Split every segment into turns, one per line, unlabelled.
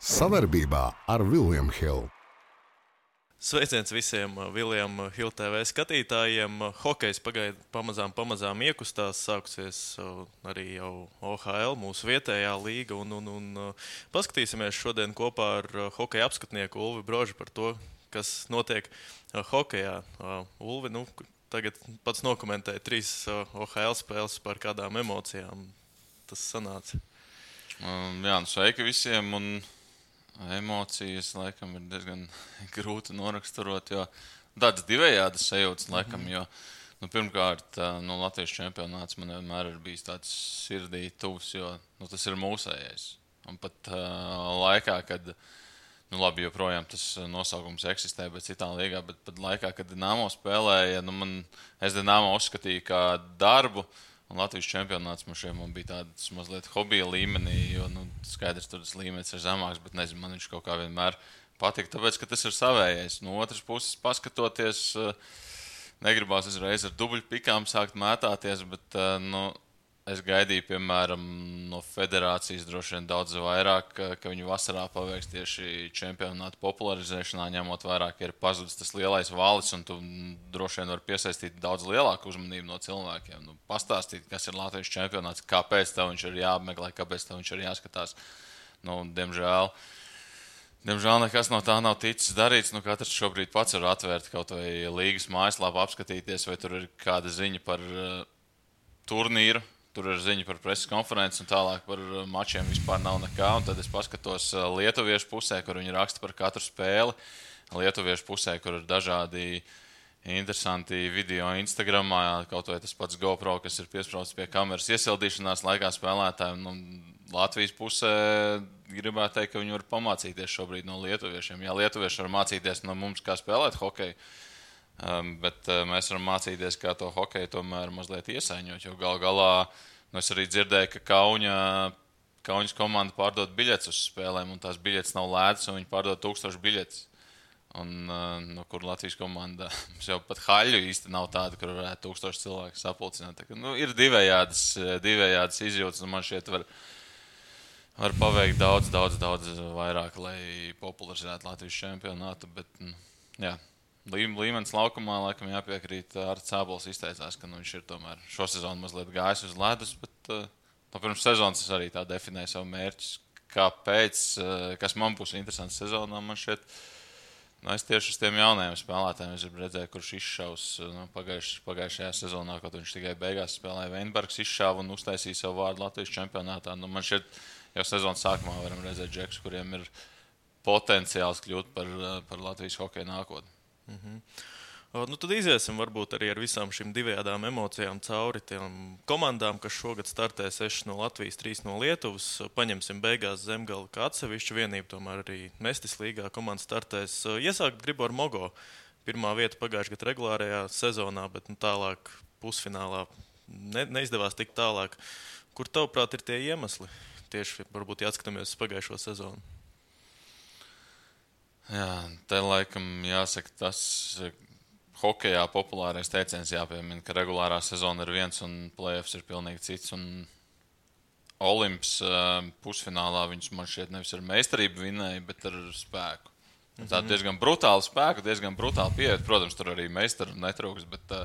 Sadarbībā ar William Hill.
Sveiciens visiem William Hill TV skatītājiem. Hokejs pamazām iekustās, sākusies arī jau OHL, mūsu vietējā līga. Paskatīsimies šodien kopā ar hokeja apskatnieku Ulvi Brožu par to, kas notiek hokejā. Ulvi, tagad pats nokomentēja 3 OHL spēles, par kādām emocijām tas sanāca.
Sveiki visiem. Emocijas, laikam, ir diezgan grūti noraksturot, jo tādas divējādas sajūtas, laikam, jo, pirmkārt, Latvijas čempionāts man vienmēr ir bijis tāds sirdī tuvs, jo, tas ir mūsējais. Un pat laikā, kad, labi, joprojām tas nosaukums eksistē, bet citā līgā, bet pat laikā, kad Dinamo spēlēja, es Dinamo uzskatīju kā darbu, un Latvijas čempionāts man bija tāds mazliet hobija līmenī, jo skaidrs, tur tas līmenis ir zemāks, bet nezinu, man viņš kaut kā vienmēr patika, tāpēc, ka tas ir savējais. No otras puses, paskatoties, negribās uzreiz ar dubļu pikām sākt mētāties, bet es gaidīju, piemēram, no federācijas droši vien daudz vairāk, ka viņi vasarā paveiks tieši čempionātu popularizēšanā, ņemot vairāk, ka ir pazudis tas lielais valis, un tu droši vien var piesaistīt daudz lielāku uzmanību no cilvēkiem. Pastāstīt, kas ir Latvijas čempionāts, kāpēc tev viņš ir jāapmeklē, kāpēc tev viņš ir jāskatās. Diemžēl nekas no tā nav ticis darīts. Katrs šobrīd pats var atvērt kaut vai līgas mājaslapu, apskatīties, vai tur ir kāda ziņa par turnīru. Tur ir ziņa par preses konferenci un tālāk par mačiem vispār nav nekā. Un tad es paskatos lietuviešu pusē, kur viņi raksta par katru spēli. Lietuviešu pusē, kur ir dažādi interesanti video Instagramā, kaut vai tas pats GoPro, kas ir piesprausts pie kameras iesildīšanās laikā spēlētājiem. Latvijas pusē gribētu teikt, ka viņi var pamācīties šobrīd no lietuviešiem. Jā, lietuvieši var mācīties no mums, kā spēlēt hokeju. Bet mēs varam mācīties, kā to hokeju tomēr mazliet iesaiņot, jo gal galā es arī dzirdēju, ka Kauņas komanda pārdod biļetes uz spēlēm, un tās biļetes nav lētas, un viņi pārdod 1000 biļetes. Kur Latvijas komanda jau pat haļu īsti nav tāda, kur varētu 1000 cilvēku sapulcināt. Ir divējādas izjūtas, un man šķiet var paveikt daudz vairāk, lai popularizētu Latvijas čempionātu, bet jā. Līmenis laukumā, laikam, jāpiekrīt. Arts Cābols izteicās, ka viņš ir tomēr šo sezonu mazliet gājis uz ledus, bet pirms sezonas es arī tā definēju savu mērķus. Kāpēc, kas man būs interesants sezonā, man šķiet, es tieši uz tiem jaunajiem spēlētājiem es gribu redzēt, kurš izšaus pagājušajā sezonā, kaut viņš tikai beigās spēlēja. Veinbergs izšāva un uztaisīja savu vārdu Latvijas čempionātā. Man šķiet, jau sezonas sākumā varam redzēt džekus, kuriem ir potenciāls kļūt par Latvijas hokeja nākotni.
Tad iziesim varbūt arī ar visām šīm divējādām emocijām cauri tiem komandām, kas šogad startē 6 no Latvijas, 3 no Lietuvas. Paņemsim beigās Zemgali kā atsevišķu vienību, tomēr arī Mestis līgā komanda startēs. Iesākt gribu ar Mogo. Pirmā vieta pagājušajā gadā regulārajā sezonā, bet tālāk pusfinālā neizdevās tik tālāk. Kur tavuprāt ir tie iemesli? Tieši varbūt jāskatāmies uz pagājušo sezonu.
Jā, te laikam jāsaka tas hokejā populārais teiciens jāpiemina, ka regulārā sezona ir viens un play-offs ir pilnīgi cits. Un Olimps pusfinālā viņš man šķiet nevis ar meistarību vinēja, bet ar spēku. Tā diezgan brutāli spēku, diezgan brutāli pieeja. Protams, tur arī meistaru netrūks, bet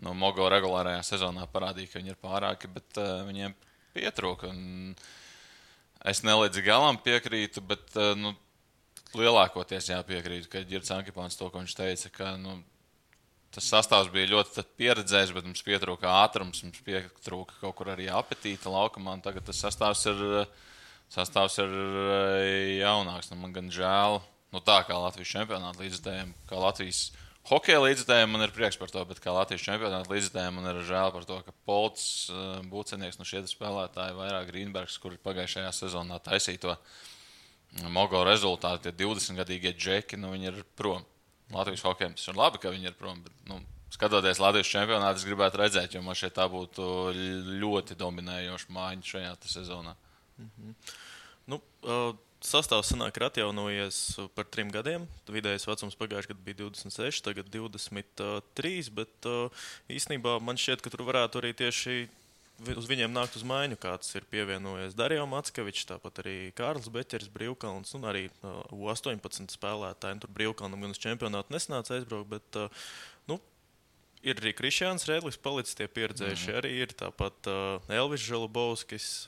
Mogo regulārajā sezonā parādīja, ka viņi ir pārāki, bet viņiem pietrūka. Es nelīdz galam piekrītu, bet lielākoties jāpiekrīt, ka Girts Ankipāns to, ko viņš teica, ka tas sastāvs bija ļoti pieredzējis, bet mums pietrūka ātrums, mums pietrūka kaut kur arī apetīta laukumā, un tagad tas sastāvs ir jaunāks. Man gan žēl, tā kā Latvijas čempionāta līdzekļiem, kā Latvijas hokeja līdzekļiem, man ir prieks par to, bet kā Latvijas čempionāta līdzekļiem, man ir žēl par to, ka Polts, Būcenieks, šie spēlētāji, vairāk Grīnbergs, kuri pagājušajā sezonā taisīja to Mogo rezultāti, tie 20-gadīgie džeki, viņi ir prom. Latvijas hokejam tas ir labi, ka viņi ir prom, bet, skatoties Latvijas čempionātu, es gribētu redzēt, jo man šeit tā būtu ļoti dominējoša mājiņa šajā sezonā.
Sastāvs sanāk ir atjaunojies par 3 gadiem. Vidējais vecums pagājušajā gadā bija 26, tagad 23, bet īstenībā man šķiet, ka tur varētu arī tieši uz viņiem nākt uz maiņu, kāds ir pievienojies Dario Mackevičs, tāpat arī Kārlis Beķers, Brīvkalns un arī U18 spēlētāji. Tur Brīvkalnam gan uz čempionātu nesnāca aizbraukt, bet ir arī Krišjāns Rēdlis palicis, tie pieredzējuši arī ir. Tāpat Elvis Žalubovskis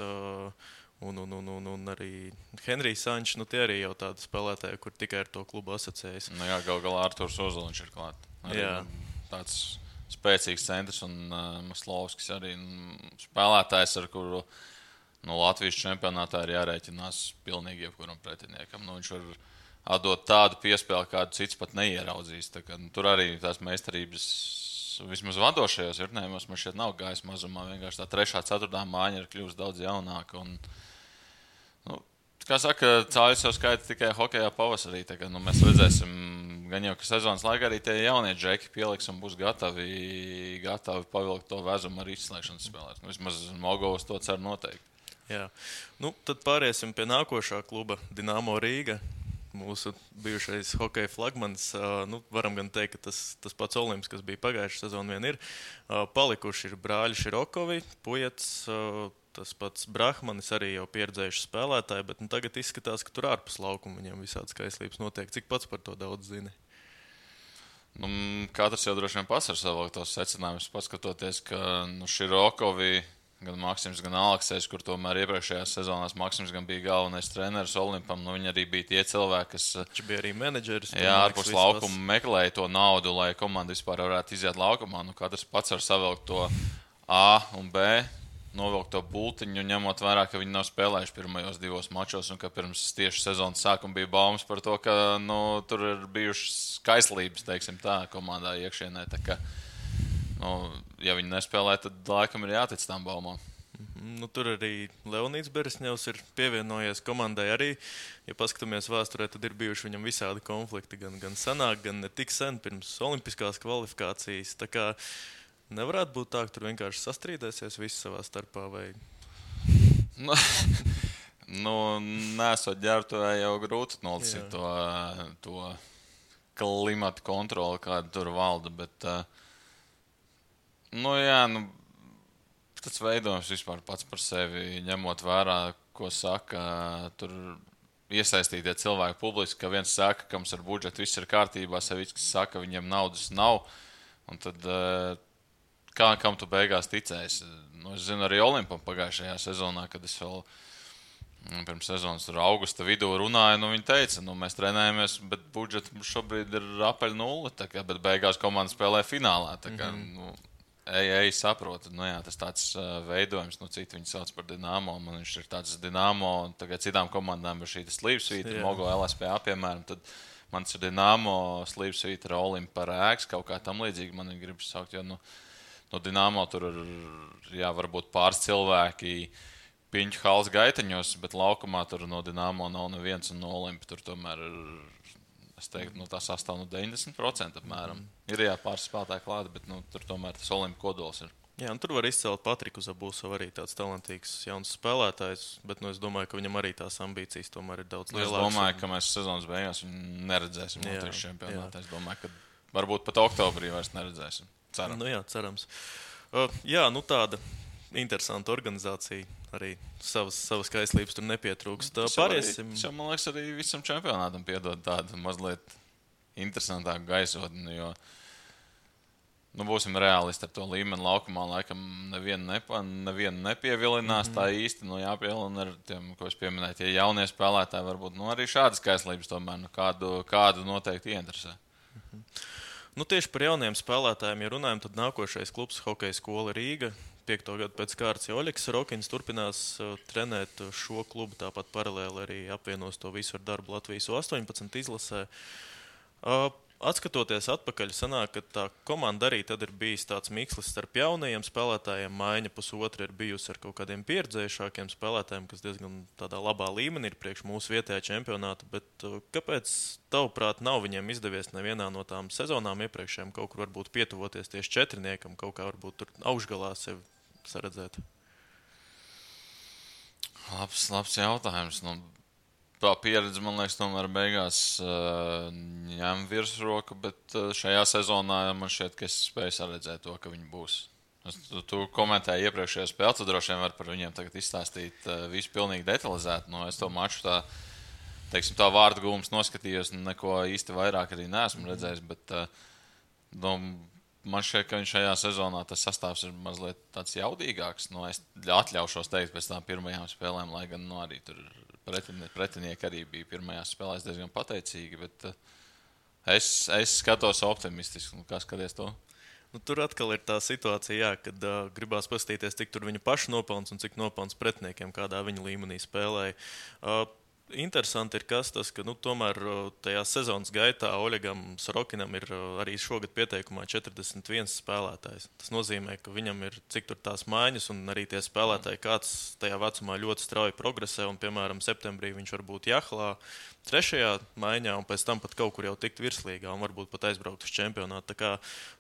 un arī Henrijs Sančs. Tie arī jau tādi spēlētāji, kur tikai ar to klubu asociējas.
Jā, gal galā Arturs Ozoliņš ir klāt. Arī tāds spēcīgs centrs un Maslovskis arī spēlētājs, ar kuru Latvijas čempionātā ir jārēķinās pilnīgi jebkuram pretiniekam. Viņš var atdot tādu piespēli, kādu cits pat neieraudzīs. Tur arī tās meistarības vismaz vadošajos vietnējumos man šeit nav gājis mazumā. Vienkārši tā 3. 4. mājiņa ir kļuvusi daudz jaunāka. Kā saka, cāļus jau skaita tikai hokejā pavasarī. Mēs redzēsim, gan jau, ka sezonas laikā arī tie jaunie džeki pieliks un būs gatavi pavilkt to vezumu ar izslēgšanas spēlēs. Vismaz Mogovs to cer noteikti.
Jā. Tad pāriesim pie nākošā kluba Dinamo Rīga. Mūsu bijušais hokeja flagmanis. Varam gan teikt, ka tas pats Olimps, kas bija pagājušā sezona, vien ir. Palikuši ir brāļi Širokovi, Pujets, tas pats Brahmanis, arī jau pieredzējuši spēlētāji, bet tagad izskatās, ka tur ārpus laukuma viņiem visādas kaislības notiek. Cik pats par to daudz zini?
Katrs jau droši vien pats ar savu tos secinājumus, paskatoties, ka Širokovi, gan Maksims, gan Aleksejs, kur tomēr iepriekšējās sezonās Maksims gan bija galvenais treneris Olimpam, viņi arī bija tie cilvēki, kas...
Viņš bija arī menedžeris.
Jā, ārpus laukuma meklēja to naudu, lai komanda vispār varētu iziet laukumā. Katrs pats var savilkt to A un B, novilkt to bultiņu, ņemot vērā, ka viņi nav spēlējuši pirmajos 2 mačos un ka pirms tieši sezonas sākuma bija baumas par to, ka tur ir bijušas kaislības, teiksim tā, komandā iekšienē. Ja viņi nespēlē, tad laikam ir jātic tām baumām.
Tur arī Leonīds Beresņevs ir pievienojies komandai arī. Ja paskatāmies vēsturē, tad ir bijuši viņam visādi konflikti, gan senāk, gan ne tik sen pirms olimpiskās kvalifikācijas. Tā kā nevarētu būt tā, ka tur vienkārši sastrīdēsies visi savā starpā, vai?
Nesot ģērbtuvē jau grūti nolasīt to klimata kontroli, kāda tur valda, bet tas veidojums vispār pats par sevi, ņemot vērā, ko saka tur iesaistītie cilvēki publiski, ka viens saka, ka mums ar budžetu viss ir kārtībā, Savickis saka, viņiem naudas nav, un tad kam tu beigās ticēsi? Es zinu arī Olimpam pagājušajā sezonā, kad es vēl pirms sezonas tur augusta vidū runāju, viņi teica, mēs trenējamies, bet budžets šobrīd ir apaļ 0, bet beigās komanda spēlē finālā. Saprotu. Tas tāds veidojums, citi viņi sauc par Dinamo, man viņš ir tāds Dinamo, tagad citām komandām ir šī slīpsvīta, Mogo LSPA, piemēram, tad mans ir Dinamo slīpsvīta ar Olimpu par ēks, kaut kā tam līdzīgi man viņi gribas saukt, jo no Dinamo tur ir, varbūt pāris cilvēki piņķu halas gaiteņos, bet laukumā tur no Dinamo nav neviens un no Olimpa tur tomēr ir, es teiktu, tā sastāv 90% apmēram. Ir pāris spēlētāji klāti, bet tur tomēr tas Olimpa kodols ir.
Jā, tur var izcelt Patriku Zabusovu, arī tāds talantīgs jauns spēlētājs, bet es domāju, ka viņam arī tās ambīcijas tomēr ir daudz lielākas.
Es domāju, ka mēs sezonas beigās viņu neredzēsim Latvijas čempionātā. Es domāju, ka varbūt pat oktobrī vairs neredzēsim. Ceram.
Cerams. Tāda interesanta organizācija. Arī savas kaislības tur nepietrūkst. Pāriesim.
Man liekas, arī visam čempionātam piedod tādu mazliet interesantāku gaisotni, jo būsim reālisti ar to līmeni laukumā. Laikam nevienu nepievilinās tā īsti. Jāpievilina ar tiem, ko es pieminēju, tie jaunie spēlētāji varbūt arī šādas kaislības tomēr kādu noteikti ieinteresē.
Tieši par jauniem spēlētājiem, ja runājam, tad nākošais klubs Hokeja skola Rīga. 5. gadu pēc kārtas Oļegs Rokins turpinās trenēt šo klubu, tāpat paralēli arī apvienos to visu ar darbu Latvijas U18 izlasē. Atskatoties atpakaļ, sanāk, ka tā komanda arī tad ir bijis tāds mikslis starp jaunajiem spēlētājiem. Maiņa pusotra ir bijusi ar kaut kādiem pieredzējušākiem spēlētājiem, kas diezgan tādā labā līmenī ir priekš mūsu vietējā čempionāta. Bet kāpēc, tavuprāt, nav viņiem izdevies nevienā no tām sezonām iepriekšējām kaut kur varbūt pietuvoties tieši četrniekam, kaut kā varbūt tur augšgalā sevi saredzēt?
Labs jautājums. Tā pieredze, man liekas, tomēr beigās ņem virsroku, bet šajā sezonā man šķiet, ka es spēju saredzēt to, ka viņi būs Tu komentēji iepriekšējā spēlē, tu droši vien vari par viņiem tagad izstāstīt visu pilnīgi detalizēti. Es to maču tā vārdu gūmus noskatījos, neko īsti vairāk arī neesmu redzējis, bet man šķiet, ka viņš šajā sezonā tas sastāvs ir mazliet tāds jaudīgāks. Es atļaušos teikt pēc tām pirmajām spēlēm, lai gan arī tur pretinieki arī bija pirmajās spēlēs diezgan pateicīgi, bet es skatos optimistiski. Kā skaties to?
Tur atkal ir tā situācija, kad gribās paskatīties, cik tur viņa paša nopelns un cik nopelns pretiniekiem, kādā viņa līmenī spēlēja. Interesanti ir tas, ka tomēr tajā sezonas gaitā Oļegam Sorokinam ir arī šogad pieteikumā 41 spēlētājs. Tas nozīmē, ka viņam ir cik tur tās maiņas un arī tie spēlētāji kāds tajā vecumā ļoti strauji progresē. Un, piemēram, septembrī viņš var būt Jahlā 3. maiņā un pēc tam pat kaut kur jau tikt virslīgā un varbūt pat aizbraukt uz čempionātu. Tā kā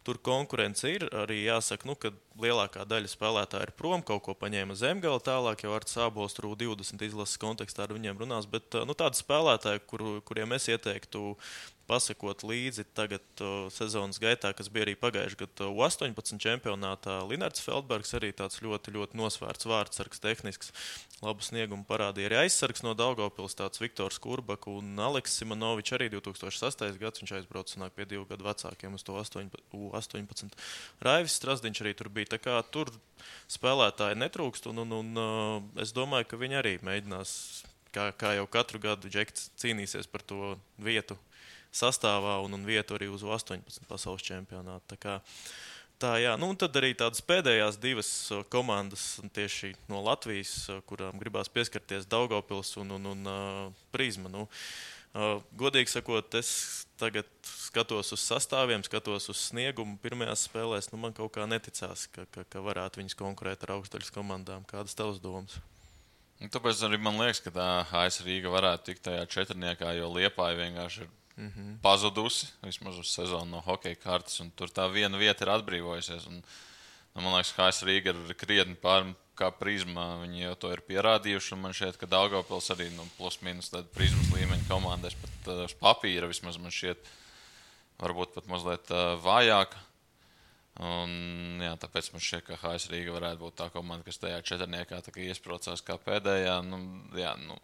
tur konkurence ir, arī jāsaka, ka lielākā daļa spēlētāji ir prom, kaut ko paņēma Zemgala, tālāk jau Arts Ābols tur 20 izlases kontekstā ar viņiem runās, bet tādi spēlētāji, kuriem es ieteiktu pasakot līdzi tagad sezonas gaitā, kas bija arī pagājušajā gadā U18 čempionātā. Linards Feldbergs arī tāds ļoti, ļoti nosvērts vārdsargs, tehnisks, labu sniegumu parādīja. Arī aizsargs no Daugavpils, tāds Viktors Kurbaka un Aleks Simonovičs arī 2008. gads. Viņš aizbrauca sanāk pie 2 gadu vecākiem uz to U18. Raivis Strasdiņš arī tur bija. Tā kā tur spēlētāji netrūkst un es domāju, ka viņi arī mēģinās, kā jau katru gadu Džekts cīnīsies par to vietu sastāvā un vietu arī uz 18 pasaules čempionātu. Tā, jā. Un tad arī tādas pēdējās divas komandas tieši no Latvijas, kurām gribās pieskarties, Daugavpils un Prizma. Godīgi sakot, es tagad skatos uz sastāviem, skatos uz sniegumu pirmajās spēlēs. Man kaut kā neticās, ka varētu viņus konkurēt ar augstdaļas komandām. Kādas tavas domas?
Tāpēc arī man liekas, ka tā AS Rīga varētu tikt tajā četrniekā, jo Liepāja vienkārši ir pazudusi vismaz uz sezonu no hokeja kartes, un tur tā viena vieta ir atbrīvojusies. Man liekas, ka AS Rīga ir krietni pār kā Prizma. Viņi jau to ir pierādījuši, un man šķiet, ka Daugavpils arī plus mīnus Prizmas līmeņa komandās pat uz papīra vismaz man šķiet varbūt pat mazliet vājāka. Jā, tāpēc man šķiet, ka AS Rīga varētu būt tā komanda, kas tajā četrniekā iesprocās kā pēdējā.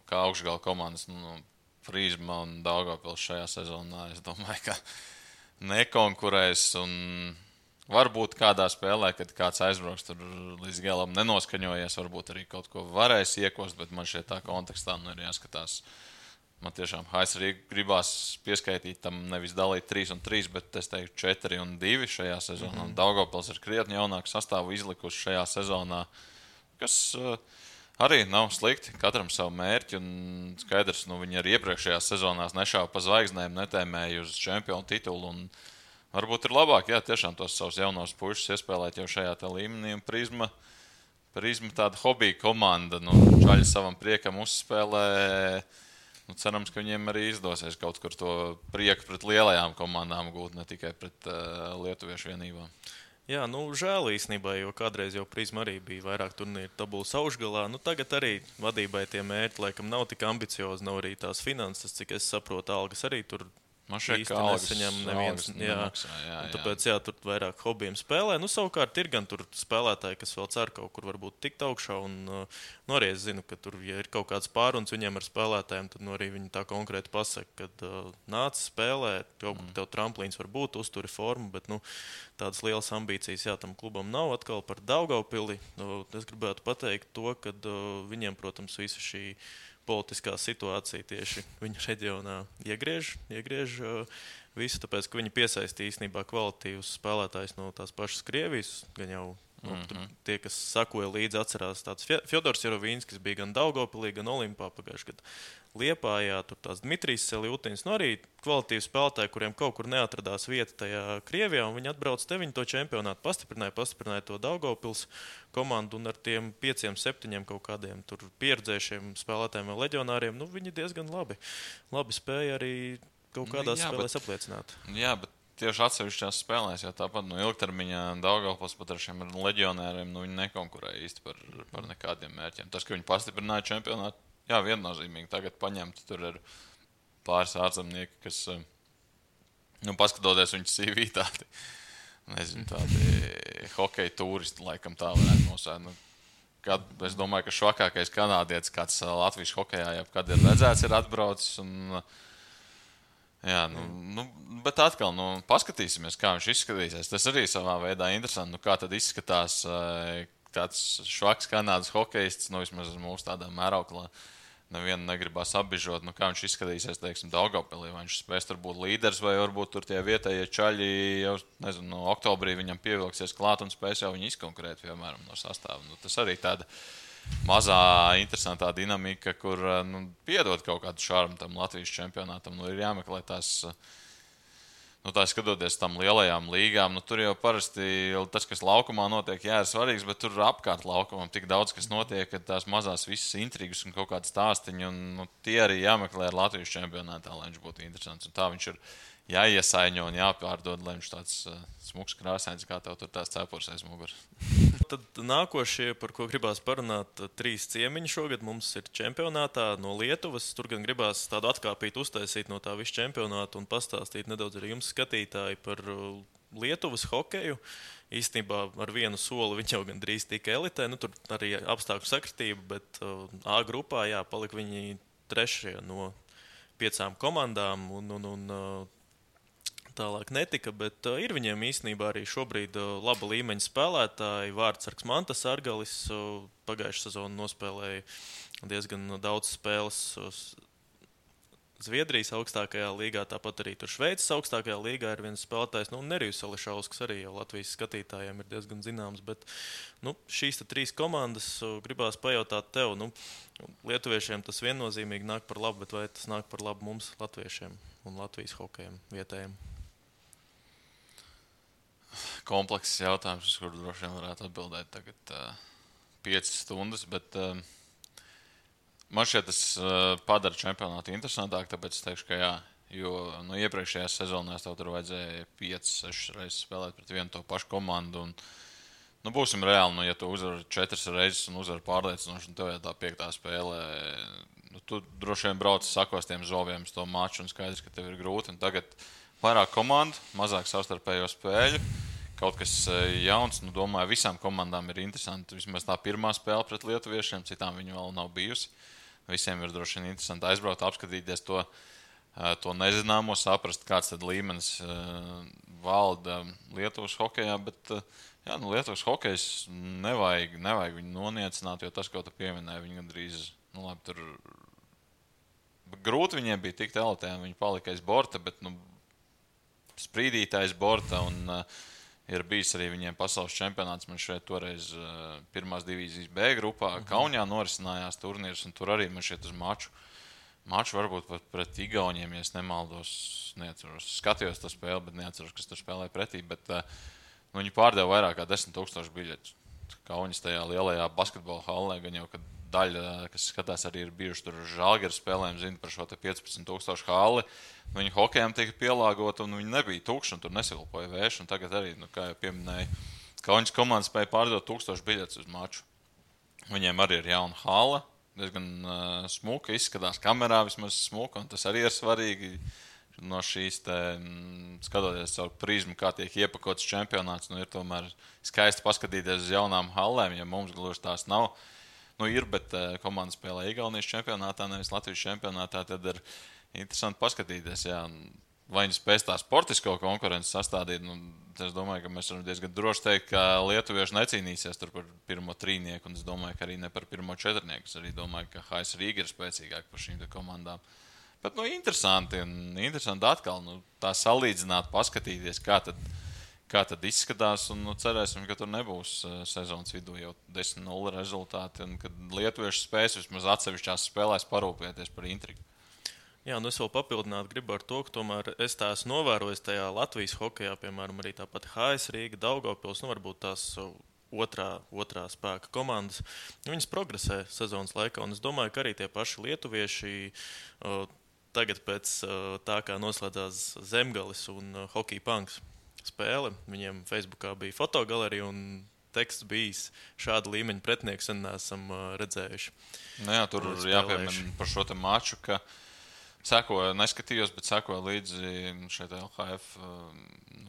Kā augšgala komandas, Prizma un Daugavpils šajā sezonā, es domāju, ka nekonkurēs. Varbūt kādā spēlē, kad kāds aizbrauks tur līdz galam nenoskaņojies, varbūt arī kaut ko varēs iekost, bet man šeit tā kontekstā ir jāskatās. Man tiešām AS Rīga gribās pieskaitīt tam nevis dalīt 3 un 3, bet es teiktu 4 un 2 šajā sezonā. Daugavpils ir krietni jaunāku sastāvu izlikuši šajā sezonā, kas arī nav slikti, katram savu mērķi, un skaidrs, viņi arī iepriekšējās sezonās nešāva pa zvaigznēm, netēmēja uz čempionu titulu, un varbūt ir labāk, tiešām tos savus jaunos pušus iespēlēt jau šajā līmenī, un Prizma tāda hobija komanda, čaļi savam priekam uzspēlē, cerams, ka viņiem arī izdosies kaut kur to prieku pret lielajām komandām gūt, ne tikai pret lietuviešu vienībām.
Jā, žēl īstenībā, jo kādreiz jau Prizma arī bija vairāk turnīru tabulas augšgalā. Tagad arī vadībai tie mērķi laikam nav tik ambiciozi, nav arī tās finanses, cik es saprotu, algas arī tur īsti nesaņem neviens. Tāpēc tur vairāk hobijiem spēlē. Savukārt ir gan tur spēlētāji, kas vēl cer kaut kur varbūt tikt augšā. Arī es zinu, ka tur, ja ir kaut kāds pāruns viņiem ar spēlētājiem, tad arī viņi tā konkrēti pasaka, ka nāc spēlē, tev tramplīns var būt, uzturi formu, bet tādas lielas ambīcijas tam klubam nav. Atkal par Daugavpili. Es gribētu pateikt to, ka viņiem, protams, visa šī politiskā situācija tieši viņa reģionā iegriež visu, tāpēc, ka viņi piesaistīja īstenībā kvalitīvus spēlētājus no tās pašas Krievijas, gan jau tie, kas sakoja līdzi, atcerās tāds Fjodors Jerovīnskis bija gan Daugavpilī, gan Olimpā pagājušajā gadā. Liepājā, tur tās Dmitrijs Seljutiņs, arī kvalitīvi spēlētāji, kuriem kaut kur neatradās vieta tajā Krievijā, un viņi atbrauc te, viņi to čempionātu pastiprināja to Daugavpils komandu, un ar tiem 5-7 kaut kādiem tur pieredzējušiem spēlētājiem vai leģionāriem, viņi diezgan labi spēja arī kaut kādās spēlēs apliecināt.
Jā, bet tieši atsevišķās spēlēs, jo tāpat ilgtermiņā Daugavpils pat ar šiem leģionāriem, viņi nekonkurēja īsti par nekādiem mērķiem. Tas, ka viņi pastiprināja čempionātu, jā, viennozīmīgi tagad paņemt, tur ir pāris ārzemnieki, kas, paskatoties viņu CV tādi nezinu, tādi hokeja turisti, laikam tā varētu nosaukt. Es domāju, ka švakākais kanādietis, kāds Latvijas hokejā jebkad ir redzēts, ir atbraucis. Jā, bet atkal, paskatīsimies, kā viņš izskatīsies. Tas arī savā veidā interesanti. Kā tad izskatās tāds švaks kanādas hokejists, vismaz mūsu tādā mēroklā. Nevienu negribas apbižot, kā viņš izskatīsies, teiksim, Daugavpilī. Vai viņš spēs tur būt līderis, vai varbūt tur tie vietējie čaļi jau, nezinu, oktobrī viņam pievilksies klāt un spēs jau viņu izkonkurēt, piemēram, no sastāva. Tas arī tāda mazā, interesantā dinamika, kur piedod kaut kādu šarmu tam Latvijas čempionātam. Ir jāmeklē tās, tā skatoties tam lielajām līgām, tur jau parasti tas, kas laukumā notiek, ir svarīgs, bet tur apkārt laukumam tik daudz, kas notiek, ka tās mazās visas intrigas un kaut kādas stāstiņi, un tie arī jāmeklē ar Latvijas čempionātā, lai viņš būtu interesants. Un tā viņš ir jāiesaiņo un jāpārdod, lai viņš tāds smuks krāsains, kā tev tur tās cepures aiz muguras.
Tad nākošie, par ko gribās parunāt, 3 ciemiņi šogad mums ir čempionātā no Lietuvas. Tur gan gribās tādu atkāpītu uztaisīt no tā visu čempionātu un pastāstīt nedaudz arī jums, skatītāji, par Lietuvas hokeju. Īstenībā ar vienu soli viņi jau gan drīz tika elitē. Tur arī apstākļu sakritība, bet A grupā palika viņi 3. no 5 komandām un tālāk netika, bet ir viņiem īstenībā arī šobrīd laba līmeņa spēlētāji. Vārtsargs Mantas Argalis pagājušā sezonu nospēlēja diezgan daudz spēles Zviedrijas augstākajā līgā, tāpat arī tur Šveices augstākajā līgā ir viens spēlētājs, Nerijus Ališausks arī jau Latvijas skatītājiem ir diezgan zināms, bet šīs 3 komandas gribās pajautāt tev, lietuviešiem tas viennozīmīgi nāk par labu, bet vai tas nāk par labu mums, latviešiem un Latvijas hokejiem vietējiem?
Komplekss jautājums, uz kuru droši vien varētu atbildēt tagad 5 stundas, bet man šķiet tas padara čempionātu interesantāk, tāpēc es teikšu, ka jā, jo iepriekšējās sezonās tev tur vajadzēja 5-6 reizes spēlēt pret vienu to pašu komandu, un būsim reāli, ja tu uzvari 4 reizes un uzvari pārliecinoši, un tev jau tā 5. spēlē, tu droši vien brauc sakos tiem zoviem uz to maču, un skaidrs, ka tev ir grūti, un tagad vairāk komandu, mazāk savstarpējo spēļu, kaut kas jauns. Domāju, visām komandām ir interesanti. Vismaz tā pirmā spēle pret lietuviešiem, citām viņa vēl nav bijusi. Visiem ir droši vien interesanti aizbraukt, apskatīties to nezināmo, saprast, kāds tad līmenis valda Lietuvas hokejā, bet Lietuvas hokejs nevajag viņu noniecināt, jo tas, ko tu pieminēji, viņi gandrīz, tur grūti viņiem bija tikt elitē, viņi palika aiz borta, bet sprīdītājs borta, un ir bijis arī viņiem pasaules čempionāts. Man šeit toreiz pirmās divīzijas B grupā Kaunijā norisinājās turnīrs, un tur arī man šeit uz maču varbūt pat pret Igauniem, ja es nemaldos, neatceros. Skatījos to spēli, bet neatceros, kas tur spēlēja pretī, bet viņi pārdeva vairāk kā 10,000 biļetes. Kaunis tajā lielajā basketbola hallē, gan jau, kad daļa, kas skatās, arī ir bijuši tur Žalgiras spēlēm, zina par šo 15,000 halli. Viņi hokejām tika pielāgota, un viņi nebija tukši, un tur nesilpoja vējš. Un tagad arī, kā jau pieminēju, Kaunis komanda spēja pārdot 1000 biļetes uz maču. Viņiem arī ir jauna halla, diezgan smuka, izskatās kamerā vismaz smuka, un tas arī ir svarīgi. No šīs skatoties caur prizmu, kā tiek iepakots čempionāts, ir tomēr skaisti paskatīties uz jaunām hallēm, ja mums gluži tās nav. Ir, bet komanda spēlē Igaunijas čempionātā, nevis Latvijas čempionātā, tad ir interesanti paskatīties, vai viņi spēs tā sportisko konkurenci sastādīt. Es domāju, ka mēs varam diezgan droši teikt, ka lietuvieši necīnīsies tur par pirmo trīnieku, un es domāju, ka arī ne par pirmo četrnieku. Es arī domāju, ka HS Rīga ir spēcīgāk par šīm komandām. Bet interesanti atkal tā salīdzināt, paskatīties, kā tad izskatās, un cerēsim, ka tur nebūs sezonas vidū jau 10-0 rezultāti, un kad lietuvieši spēs vismaz atsevišķās spēlēs parūpēties par intrigu.
Jā, es vēl papildināt gribu ar to, ka tomēr es tā esmu novērojis tajā Latvijas hokejā, piemēram, arī tāpat HS Rīga, Daugavpils, varbūt tās otrā spēka komandas. Viņas progresē sezonas laikā, un es domāju, ka arī tie paši lietuvieši tagad pēc tā, kā noslēdzās Zemgalis un Hockey Punks spēle, viņiem Facebookā bija fotogalerija un teksts bijis šāda līmeņa pretinieks, un neesam redzējuši.
Tur jāpiemina par šo te maču, ka neskatījos, bet sekoju līdzi šeit LHF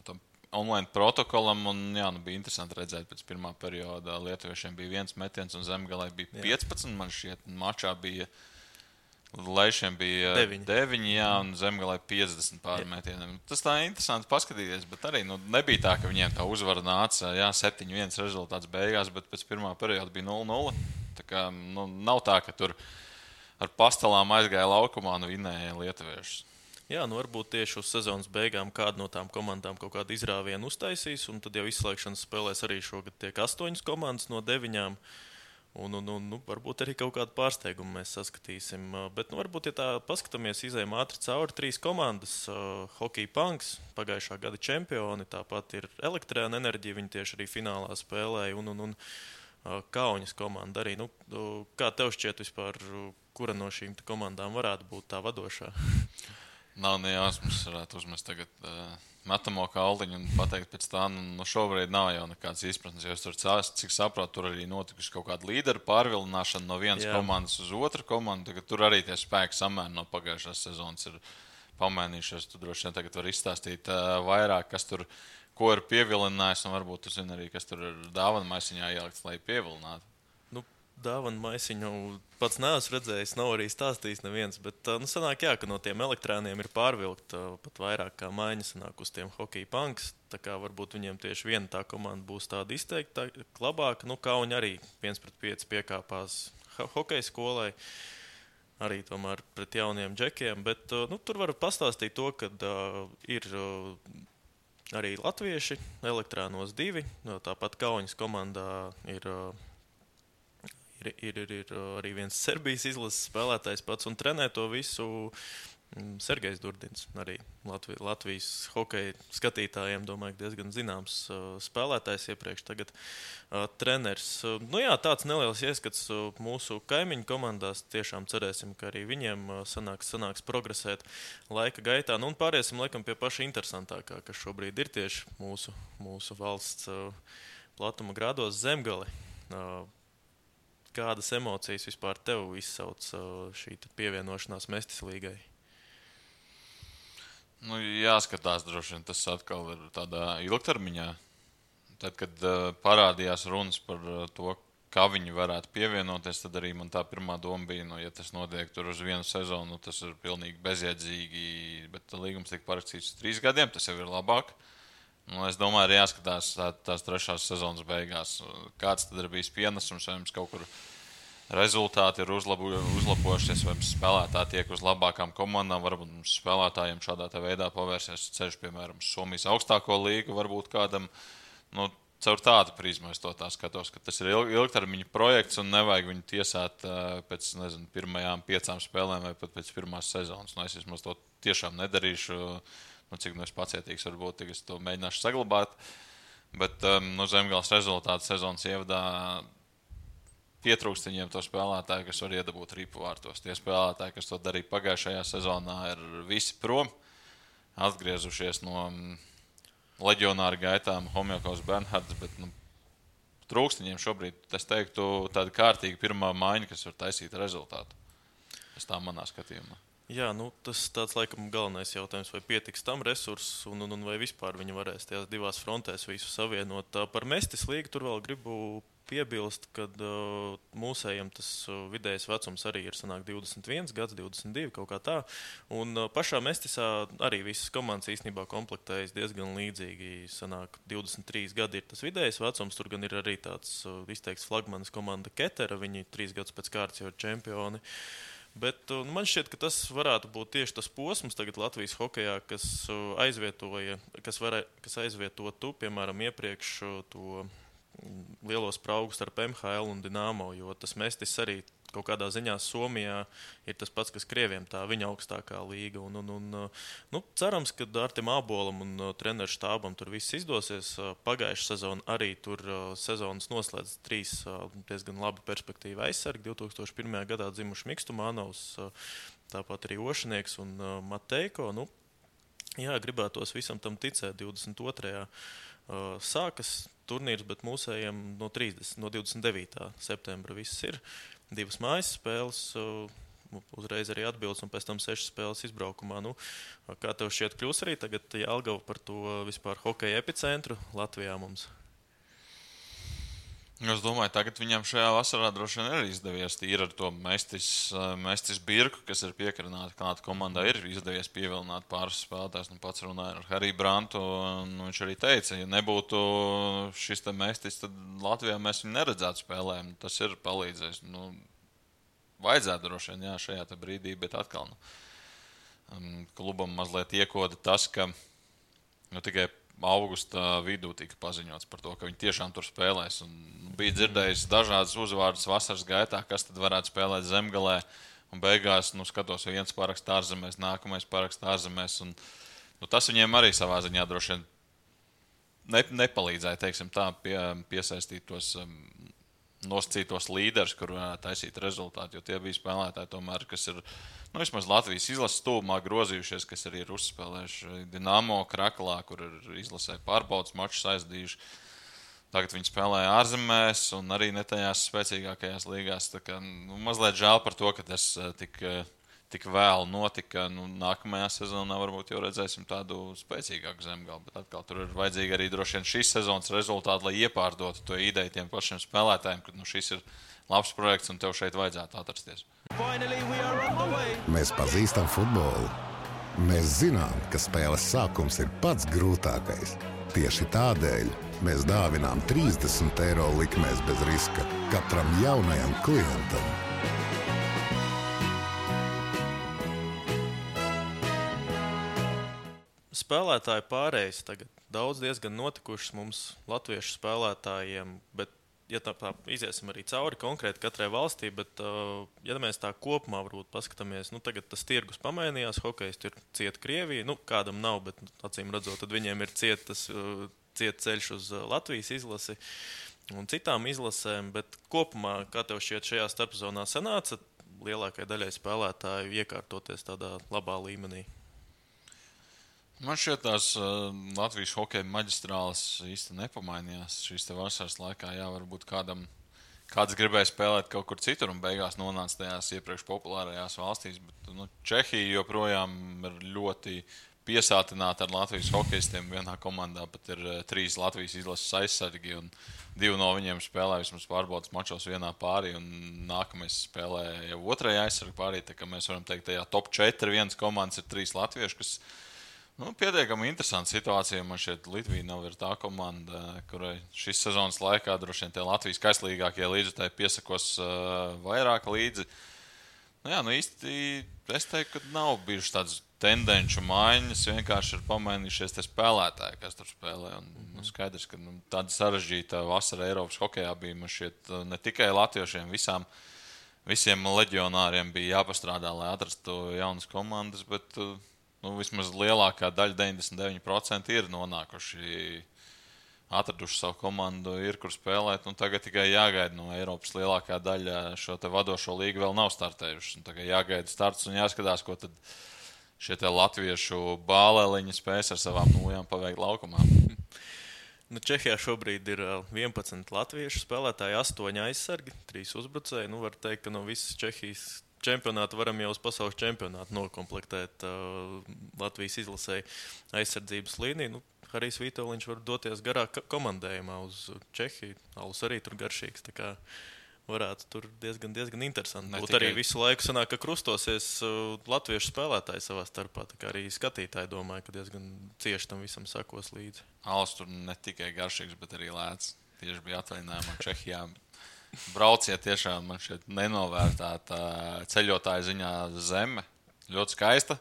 tam online protokolam. Un, jā, bija interesanti redzēt, pēc pirmā perioda lietuviešiem bija 1 metiens un Zemgalē bija 15. Man šķiet, mačā bija Leišiem bija 9, jā, un Zemgalē 50 pārmetieniem. Tas tā interesanti paskatīties, bet arī nebija tā, ka viņiem tā uzvara nāca, 7-1 rezultāts beigās, bet pēc pirmā perioda bija 0-0. Tā kā nav tā, ka tur ar pastelām aizgāja laukumā un vinēja lietuviešus.
Jā, varbūt tieši uz sezonas beigām kāda no tām komandām kaut kādu izrāvienu uztaisīs, un tad jau izslēgšanas spēlēs arī šogad tiek 8 komandas no 9. Un varbūt arī kaut kādu pārsteigumu mēs saskatīsim. Bet, varbūt, ja tā paskatāmies, izējām ātri cauri 3 komandas. Hockey Punks, pagājušā gada čempioni, tāpat ir Elektrēna Enerģija, viņi tieši arī finālā spēlēja, un Kauņas komanda arī. Kā tev šķiet vispār, kura no šīm komandām varētu būt tā vadošā?
Nav nejausmas, varētu uzmest tagad metamo kaldiņu un pateikt pēc tā, šobrīd nav jau nekādas izpratnes, jo es tur cik saprotu, tur arī notikuši kaut kāda līderu pārvilināšana no vienas komandas uz otru komandu, tagad tur arī tie spēki samēri no pagājušās sezonas ir pamainījušies, tu droši vien tagad var izstāstīt vairāk, kas tur, ko ir pievilinājis, un varbūt tu zini arī, kas tur ir dāvana maisiņā ielikts, lai pievilinātu.
Dāvana maisiņu pats neesmu redzējis, nav arī stāstījis neviens, bet sanāk, ka no tiem elektrāniem ir pārvilkt pat vairāk kā maiņa sanāk uz tiem Hockey Punks, tā kā varbūt viņiem tieši viena tā komanda būs tāda izteikta labāka, Kauņi arī 1-5 piekāpās hokeja skolai, arī tomēr pret jauniem džekiem, bet tur var pastāstīt to, ka ir arī latvieši, Elektrānos 2, tāpat Kauņas komandā ir arī viens Serbijas izlases spēlētājs pats un trenē to visu Sergejs Durdins. Arī Latvijas hokeja skatītājiem, domāju, diezgan zināms spēlētājs iepriekš tagad treneris. Tāds neliels ieskats mūsu kaimiņu komandās. Tiešām cerēsim, ka arī viņiem sanāks progresēt laika gaitā. Un pāriesim laikam pie paša interesantākā, kas šobrīd ir tieši mūsu valsts platuma grādos Zemgali. Kādas emocijas vispār tev izsauc šī pievienošanās Mestis līgai?
Jāskatās droši vien, tas atkal ir tādā ilgtermiņā. Tad, kad parādījās runas par to, kā viņi varētu pievienoties, tad arī man tā pirmā doma bija, ja tas notiek tur uz vienu sezonu, tas ir pilnīgi bezjēdzīgi, bet līgums tiek parakstīts uz 3 gadiem, tas jau ir labāk. Es domāju, arī jāskatās tās 3. sezonas beigās, kāds tad ir bijis pienesums, vai mums kaut kur rezultāti ir uzlabojušies, vai mums spēlētāji tiek uz labākām komandām, varbūt mums spēlētājiem šādā veidā pavērsies ceļš, piemēram, Somijas augstāko līgu, varbūt kādam, caur tādu prizmu es to tā skatos, ka tas ir ilgtermiņa projekts un nevajag viņu tiesāt pēc, pirmajām 5 spēlēm vai pat pēc pirmās sezonas. Es vismaz to tiešām nedarīšu. Cik es pacietīgs varbūt, tik es to mēģināšu saglabāt. Bet Zemgales rezultātu sezonas ievadā pietrūkst viņiem to spēlētāju, kas var iedabūt ripu vārtos. Tie spēlētāji, kas to darīja pagājušajā sezonā, ir visi prom, atgriezušies no leģionāra gaitām, Homjakovs, Bernhards, bet trūkst viņiem šobrīd, es teiktu, tāda kārtīga pirmā maiņa, kas var taisīt rezultātu. Tas tā manā skatījumā.
Jā, tas tāds laikam galvenais jautājums, vai pietiks tam resursus un vai vispār viņi varēs tajās 2 frontēs visu savienot. Par Mestis līgu tur vēl gribu piebilst, ka mūsējiem tas vidējais vecums arī ir 21 gads, 22, kaut kā tā. Un pašā Mestisā arī visas komandas īstenībā komplektējas diezgan līdzīgi. 23 gadi ir tas vidējais vecums, tur gan ir arī tāds izteikts flagmanis komanda Ketera, viņi 3 gadus pēc kārtas jau ir čempioni. Bet man šķiet, ka tas varētu būt tieši tas posms tagad Latvijas hokejā, kas aizvietotu, piemēram, iepriekš to lielo spraugu starp MHL un Dinamo, jo tas Mestis arī kaut kādā ziņā Somijā ir tas pats, kas Krieviem, tā viņa augstākā līga. Cerams, ka Artim Ābolam un treneru štābam tur viss izdosies. Pagājušā sezona arī tur sezonas noslēdz 3 diezgan labi perspektīvi aizsargi. 2001. gadā dzimuši Mikstumanovs, tāpat arī Ošanieks un Mateiko. Gribētos visam tam ticēt. 22. Sākas turnīrs, bet mūsējiem no 29. septembra viss ir. 2 mājas spēles uzreiz arī atbildes, un pēc tam 6 spēles izbraukumā. Nu, kā tev šķiet, kļūs arī tagad Jelgava par to vispār hokeja epicentru Latvijā mums?
Es domāju, tagad viņam šajā vasarā droši vien ir izdevies tīri ar to Mestis Birku, kas ir piekarināti kāda komanda, ir izdevies pievilināt pāris spēlētājs. Nu, pats runāja ar Hariju Brantu, un viņš arī teica, ja nebūtu šis te Mestis, tad Latvijā mēs viņu neredzētu spēlēm. Tas ir palīdzējis. Nu, vajadzētu droši vien, jā, šajā te brīdī, bet atkal klubam mazliet iekoda tas, ka tikai augusta vidū tika paziņots par to, ka viņi tiešām tur spēlēs. Un bija dzirdējis dažādas uzvārdas vasaras gaitā, kas tad varētu spēlēt Zemgalē. Un beigās, skatos, viens paraksts ārzemēs, nākamais paraksts ārzemēs. Un, tas viņiem arī savā ziņā droši vien nepalīdzēja, teiksim tā, piesaistīt tos nosacītos līderus, kur varētu taisīt rezultātu. Jo tie bija spēlētāji tomēr, kas ir vismaz Latvijas izlases tuvumā grozījušies, kas arī ir uzspēlējuši Dinamo Kraklā, kur ir izlasē pārbaudas mačus aizdījuši. Tagad viņi spēlēja ārzemēs un arī ne tajās spēcīgākajās līgās. Tā kā, mazliet žēl par to, ka tas tik vēlu notika. Nākamajā sezonā varbūt jau redzēsim tādu spēcīgāku Zemgali, bet atkal tur ir vajadzīgi arī droši vien šīs sezonas rezultāti, lai iepārdotu to ideju tiem pašiem spēlētājiem, ka šis ir labs projekts un tev šeit vajadzētu atrasties.
Mēs pazīstam futbolu. Mēs zinām, ka spēles sākums ir pats grūtākais. Tieši tādēļ mēs dāvinām 30 € likmēs bez riska katram jaunajam klientam.
Spēlētāju pārējais tagad daudz diezgan notikušas mums latviešu spēlētājiem, bet ja tā iziesim arī cauri konkrēti katrai valstī, bet ja mēs tā kopumā varbūt paskatāmies, tagad tas tirgus pamainījās, hokejs ir cieta Krievija, kādam nav, bet acīm redzot, tad viņiem ir ciet ceļš uz Latvijas izlasi un citām izlasēm, bet kopumā, kā tev šķiet, šajā starpzonā sanāca lielākai daļai spēlētāju iekārtoties tādā labā līmenī?
Man šķiet, tās Latvijas hokeja maģistrāles īsti nepamainījās šīs te vasaras laikā. Jā, varbūt kāds gribēja spēlēt kaut kur citur un beigās nonāca tajās iepriekš populārajās valstīs, bet Čehija joprojām ir ļoti piesātināta ar Latvijas hokejistiem. Vienā komandā pat ir 3 Latvijas izlases aizsargi un 2 no viņiem spēlē vismaz pārbaudas mačos vienā pārī un nākamais spēlē jau otrajā aizsargu pārī. Tā kā mēs varam teikt, tajā top 4 vienas komandas ir 3 latvieši, kas pietiekami interesanta situācija. Man šķiet, Litvija nav ir tā komanda, kurai šis sezonas laikā droši vien tie Latvijas kaislīgākie līdzekļi piesakos vairāk līdzi. Īsti es teiktu, ka nav bijušas tādas tendenču maiņas, vienkārši ir pamainījušies tie spēlētāji, kas tur spēlē. Un, skaidrs, ka tāda sarežģīta vasara Eiropas hokejā bija. Man šķiet, ne tikai latviešiem, visiem leģionāriem bija jāpastrādā, lai atrastu jaunas komandas, bet vismaz lielākā daļa, 99% ir nonākuši, atraduši savu komandu, ir kur spēlēt. Tagad tikai jāgaida no Eiropas lielākā daļa šo te vadošo līgu vēl nav startējuši. Tagad jāgaida starts un jāskatās, ko tad šie te latviešu bāleliņi spēs ar savām nūjām paveikt laukumā.
Čehijā šobrīd ir 11 latviešu spēlētāji, 8 aizsargi, 3 uzbrucēji. Var teikt, ka no visas Čehijas čempionātu varam jau uz pasaules čempionātu nokomplektēt Latvijas izlasēji aizsardzības līniju. Harijs Vitoļņš var doties garā komandējumā uz Čehiju. Alus arī tur garšīgs, tā kā varētu tur diezgan interesanti būt. Arī visu laiku sanāk, ka krustosies latviešu spēlētāji savā starpā. Tā kā arī skatītāji domāja, ka diezgan cieši tam visam sakos līdzi.
Alus tur ne tikai garšīgs, bet arī lēts. Tieši bija atvaļinājumā Čehijā. Brauciet tiešām man šeit nenovērtāta ceļotāja ziņā zeme. Ļoti skaista.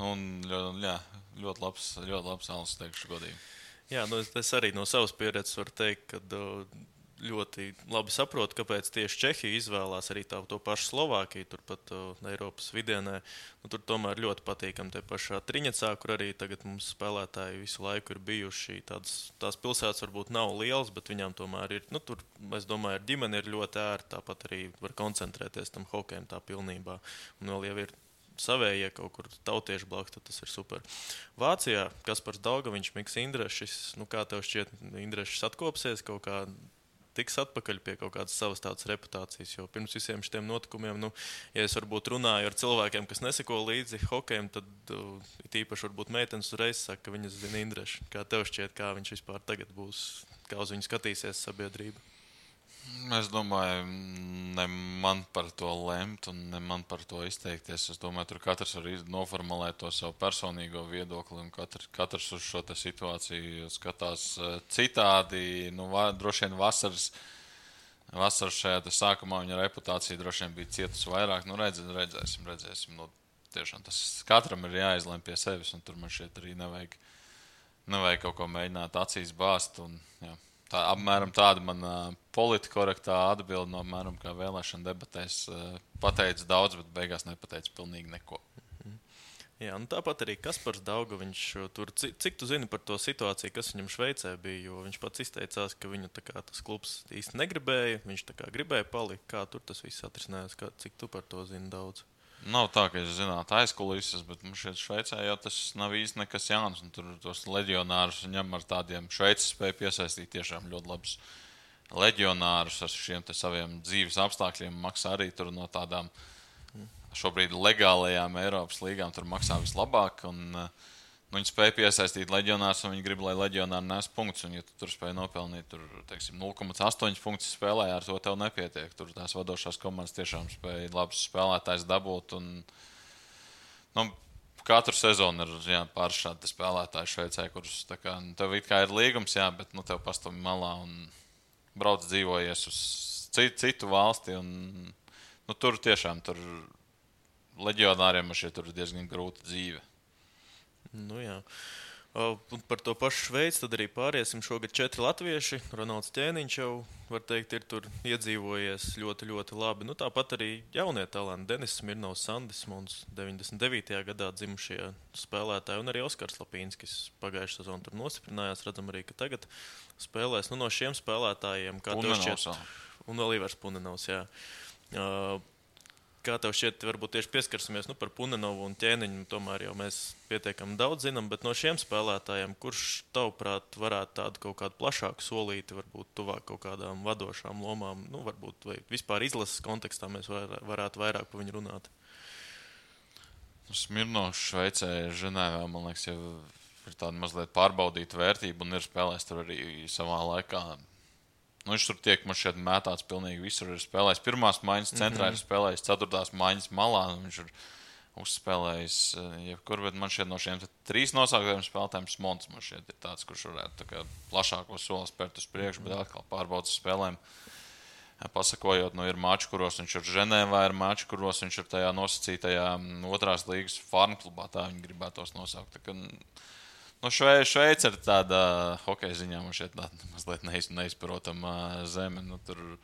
Un ļoti labs alus, teikšu godīgi.
Jā, es arī no savas pieredzes varu teikt, ka ļoti labi saprotu, kāpēc tieši Čehija izvēlās arī to pašu Slovākiju, turpat Eiropas vidienē. Tur tomēr ļoti patīkami te pašā Triņecā, kur arī tagad mums spēlētāji visu laiku ir bijuši. Tās pilsētas varbūt nav lielas, bet viņām tomēr ir, tur, es domāju, ar ģimeni ir ļoti ērti, tāpat arī var koncentrēties tam hokejam tā pilnībā. Un vēl jau ir savējie kaut kur tautieši blakus, tad tas ir super. Vācijā Kaspars Daugaviņš, Miks Indrešis, kā tev šķiet, Indrešis atkopsies kaut kā tiks atpakaļ pie kaut kādas savas tādas reputācijas. Jo pirms visiem šiem notikumiem, ja es varbūt runāju ar cilvēkiem, kas neseko līdzi hokejam, tad it īpaši varbūt meitenes uzreiz saka, ka viņas zina Indrešu. Kā tev šķiet, kā viņš vispār tagad būs, kā uz viņu skatīsies sabiedrība?
Es domāju, ne man par to lemt un ne man par to izteikties. Es domāju, tur katrs var noformulēt to savu personīgo viedokli un katrs uz šo situāciju skatās citādi. Droši vien vasaras šajā sākumā viņa reputācija droši vien bija cietusi vairāk. Redzēsim. Tiešām tas katram ir jāizlem pie sevis un tur man šeit arī nevajag kaut ko mēģināt acīs bāzt. Apmēram tāda man politkorektā atbilde no apmēram kā vēlēšana debatēs pateica daudz, bet beigās nepateica pilnīgi neko.
Jā, tāpat arī Kaspars Daugaviņš tur, cik tu zini par to situāciju, kas viņam Šveicē bija, jo viņš pats izteicās, ka viņu tas klubs īsti negribēja, viņš gribēja palikt. Kā tur tas viss atrisinājās, cik tu par to zini daudz?
Nav tā, ka es zinātu aizkulises, bet mums šeit Šveicē jau tas nav īsti nekas jauns. Tur tos leģionārus ņem ar tādiem Šveices spēju piesaistīt tiešām ļoti labus leģionārus ar šiem saviem dzīves apstākļiem. Maksā arī tur no tādām šobrīd legālajām Eiropas līgām tur maksā vislabāk. Viņi spēja piesaistīt leģionārus, un viņi grib, lai leģionāri nes punktus. Un, ja tu tur spēj nopelnīt 0,8 punktus spēlē, ar to tev nepietiek. Tur tās vadošās komandas tiešām spēja labus spēlētājus dabūt. Katru sezonu ir pāris šādi spēlētāji Šveicē, kurus tev it kā ir līgums, bet tev pastāv malā un brauc dzīvojies uz citu valsti. Tur tiešām leģionāriem tur ir diezgan grūta dzīve.
Jā. Un par to pašu Šveici tad arī pāriesim. Šogad 4 latvieši. Ronalds Ķēniņš jau, var teikt, ir tur iedzīvojies ļoti, ļoti labi. Tāpat arī jaunie talanti. Denis Smirnovs, Sandis Mons, 99. gadā dzimušie spēlētāji, un arī Oskars Lapīnskis pagājušā sezonā tur nostiprinājās. Redzam arī, ka tagad spēlēs no šiem spēlētājiem. Kā tev šķiet? Un vēl Ivars Punenovs, jā. Kā tev šķiet, varbūt tieši pieskarsimies par Punenovu un Ķēniņu, tomēr jau mēs pietiekami daudz zinām, bet no šiem spēlētājiem, kurš tavuprāt varētu tādu kaut kādu plašāku solīti, varbūt tuvāk kaut kādām vadošām lomām, varbūt vai vispār izlases kontekstā mēs varētu vairāk par viņu runāt?
Smirnovs Šveicē, Ženēvā, man liekas, jau ir tāda mazliet pārbaudīta vērtība un ir spēlējis tur arī savā laikā. Viņš tur tiek man šeit mētāts pilnīgi visur. Ir spēlējis pirmās maiņas centrā, ir spēlējis ceturtās maiņas malā. Viņš ir uzspēlējis jebkur, bet man šeit no šiem 3 nosauktiem spēlētājiem Smons man šeit ir tāds, kurš varētu plašāko soli spērt uz priekšu, bet atkal pārbaudas spēlēm. Pasakojot, ir mači, kuros viņš ir Ženēvā, ir mači, kuros viņš ir tajā nosacītajā otrās līgas farmklubā, tā viņi gribētos nosaukt. Šveice ir tāda hokeja ziņā, man šeit mazliet neizprotama zeme. Tur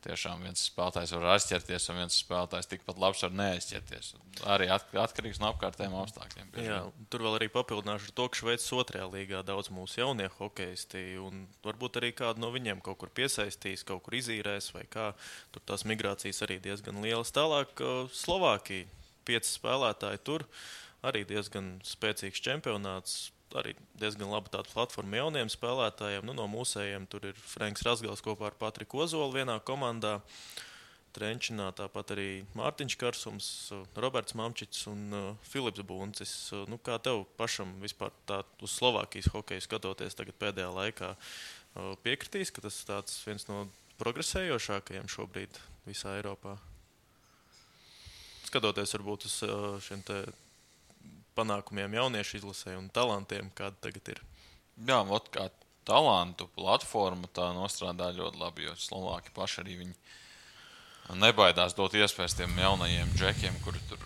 tiešām viens spēlētājs var aizķerties, un viens spēlētājs tikpat labs var neaizķerties. Arī atkarīgs no apkārtējiem apstākļiem.
Jā, tur vēl arī papildināšu ar to, ka Šveices 2. līgā daudz mūsu jaunie hokeisti, un varbūt arī kādu no viņiem kaut kur piesaistīs, kaut kur izīrēs, vai kā. Tur tās migrācijas arī diezgan lielas. Tālāk Slovākija, 5 spēlētāji tur, arī diezgan spēcīgs čempionāts. Arī diezgan laba tāda platforma jauniem spēlētājiem. No mūsējiem tur ir Franks Razgals kopā ar Patriku Ozolu vienā komandā. Trenčinā tāpat arī Mārtiņš Karsums, Roberts Mamčiks un Filips Buncis. Kā tev pašam vispār tā uz Slovākijas hokeju skatoties tagad pēdējā laikā piekritīs, ka tas tāds viens no progresējošākajiem šobrīd visā Eiropā? Skatoties varbūt uz šiem te panākumiem jauniešu izlasē un talantiem, kāda tagad ir.
Jā, kā talantu platforma tā nostrādā ļoti labi, jo Slovāki paši arī viņi nebaidās dot iespējas tiem jaunajiem džekiem, kuri tur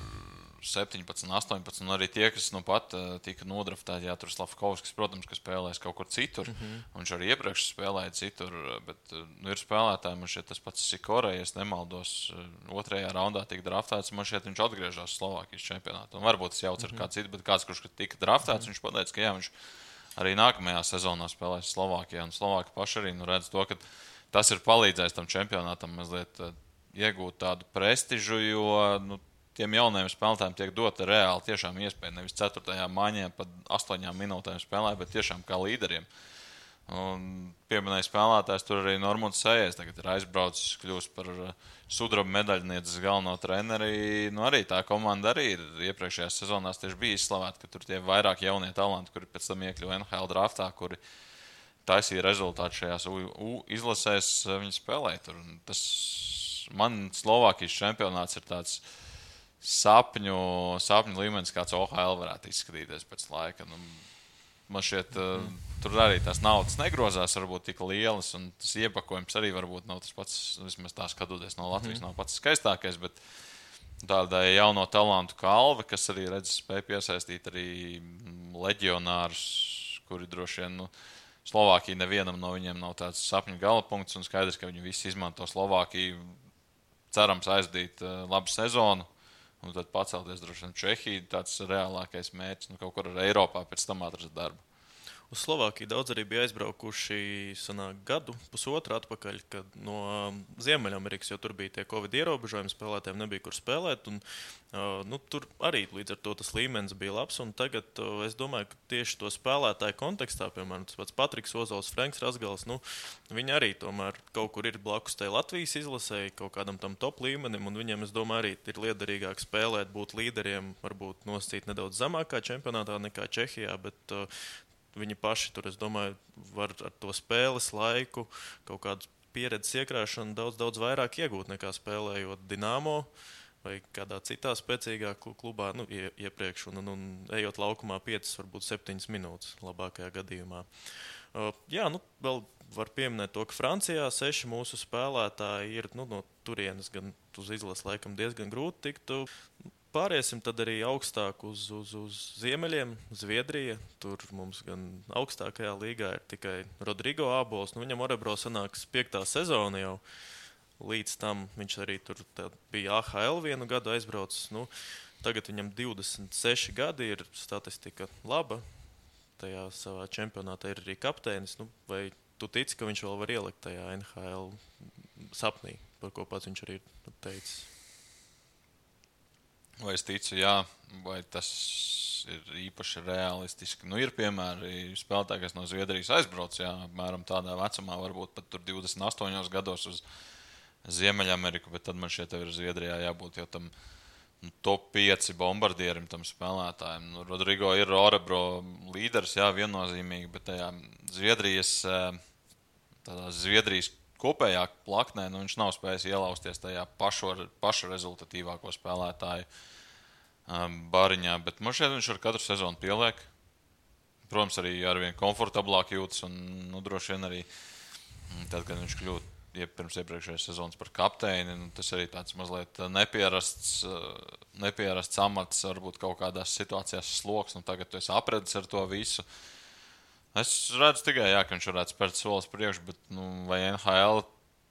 17, 18, un arī tie, kas pat tika nodraftēti, tur Slavkovskis, protams, ka spēlēs kaut kur citur, viņš arī iepriekš spēlēja citur, bet ir spēlētāji, man šeit tas pats Sikorē, ja es nemaldos, 2. raundā tika draftēts, man šeit viņš atgriežās Slovākijas čempionātā, un varbūt tas jauc ar kāds citu, bet kāds, kurš tika draftēts, viņš pateica, ka jā, viņš arī nākamajā sezonā spēlēs Slovākijā, un Slovāki paši arī redz to, ka tas ir palīdzējis tam čempionātam mazliet iegūt tādu prestižu, jo, tiem jaunajiem spēlētājiem tiek dota reāli tiešām iespēja nevis 4. maiņā pat 8 minūtēm spēlēt, bet tiešām kā līderiem. Un pieminēja spēlētājs, tur arī Normons Sējers tagad ir aizbraucis, kļūst par sudraba medaļnieces galveno treneri. Nu, arī tā komanda arī ir iepriekšējās sezonās tieši bija izslavēta, ka tur tie vairāk jaunie talanti, kuri pēc tam iekļuva NHL draftā, kuri taisīja rezultātu šajās izlasēs, viņi spēlēja tur. Tas man Slovākijas čempionāts ir tāds sapņu līmenis, kāds OHL varētu izskatīties pēc laika. Nu, man šķiet, tur arī tās naudas negrozās varbūt tik lielas, un tas iepakojums arī varbūt nav tas pats, vismaz tā skatoties no Latvijas, nav pats skaistākais, bet tādai jauno talantu kalve, kas arī spēja piesaistīt arī leģionārus, kuri droši vien, Slovākija nevienam no viņiem nav tāds sapņu galapunkts, un skaidrs, ka viņi visi izmanto Slovākiju, cerams aizdīt labu sezonu, un tad pacelties droši vien Čehija, tāds reālākais mērķis, kaut kur ar Eiropā pēc tam atrast darbu.
Uz Slovākiju daudz arī bija aizbraukuši gadu, pusotru atpakaļ, kad no Ziemeļamerikas, jo tur bija tie Covid ierobežojumi, spēlētājiem nebija kur spēlēt. Un, tur arī līdz ar to tas līmenis bija labs. Un tagad es domāju, ka tieši to spēlētāju kontekstā, piemēram, tas pats Patriks Ozols, Franks Rasgals, viņi arī tomēr kaut kur ir blakus tai Latvijas izlasēji, kaut kādam tam top līmenim. Un viņiem, es domāju, arī ir liederīgāk spēlēt, būt līderiem, varbūt nosacīt nedaudz zemākā čempionātā nekā Čehijā, bet viņi paši tur, es domāju, var ar to spēles laiku, kaut kādu pieredzes iekrāšanu daudz vairāk iegūt nekā spēlējot Dinamo vai kādā citā spēcīgā klubā iepriekš un ejot laukumā 5, varbūt 7 minūtes labākajā gadījumā. Vēl var pieminēt to, ka Francijā 6 mūsu spēlētāji ir no turienes gan uz izlases laikam diezgan grūti tikt. Pāriesim tad arī augstāk uz ziemeļiem, Zviedrija. Tur mums gan augstākajā līgā ir tikai Rodrigo Ābols. Viņam Orebro sanāks 5. sezona jau. Līdz tam viņš arī tur bija AHL vienu gadu aizbraucis. Tagad viņam 26 gadi, ir statistika laba. Tajā savā čempionātā ir arī kapteinis. Vai tu tici, ka viņš vēl var ielikt tajā NHL sapnī, par ko pats viņš arī ir teicis?
Vai es ticu, jā, vai tas ir īpaši realistiski. Ir piemēri spēlētāji, kas no Zviedrijas aizbrauc, apmēram tādā vecumā, varbūt pat tur 28 gados uz Ziemeļameriku, bet tad man šeit ir Zviedrijā jābūt jau tam top 5 bombardierim, tam spēlētājiem. Rodrigo ir Orebro līderis, viennozīmīgi, bet tajā Zviedrijas kopējā plaknē, viņš nav spējis ielausties tajā paša rezultatīvāko spēlētāju bariņā, bet man šeit viņš ar katru sezonu pieliek. Protams, arī arvien komfortablāk jūtas un droši vien arī tad, kad viņš kļūt pirms iepriekšējās sezonas par kapteini, tas arī tāds mazliet nepierasts amats, varbūt kaut kādās situācijās sloks, tagad tu esi apredis ar to visu. Es redzu tikai, ka viņš varētu spērt solis priekš, bet vai NHL,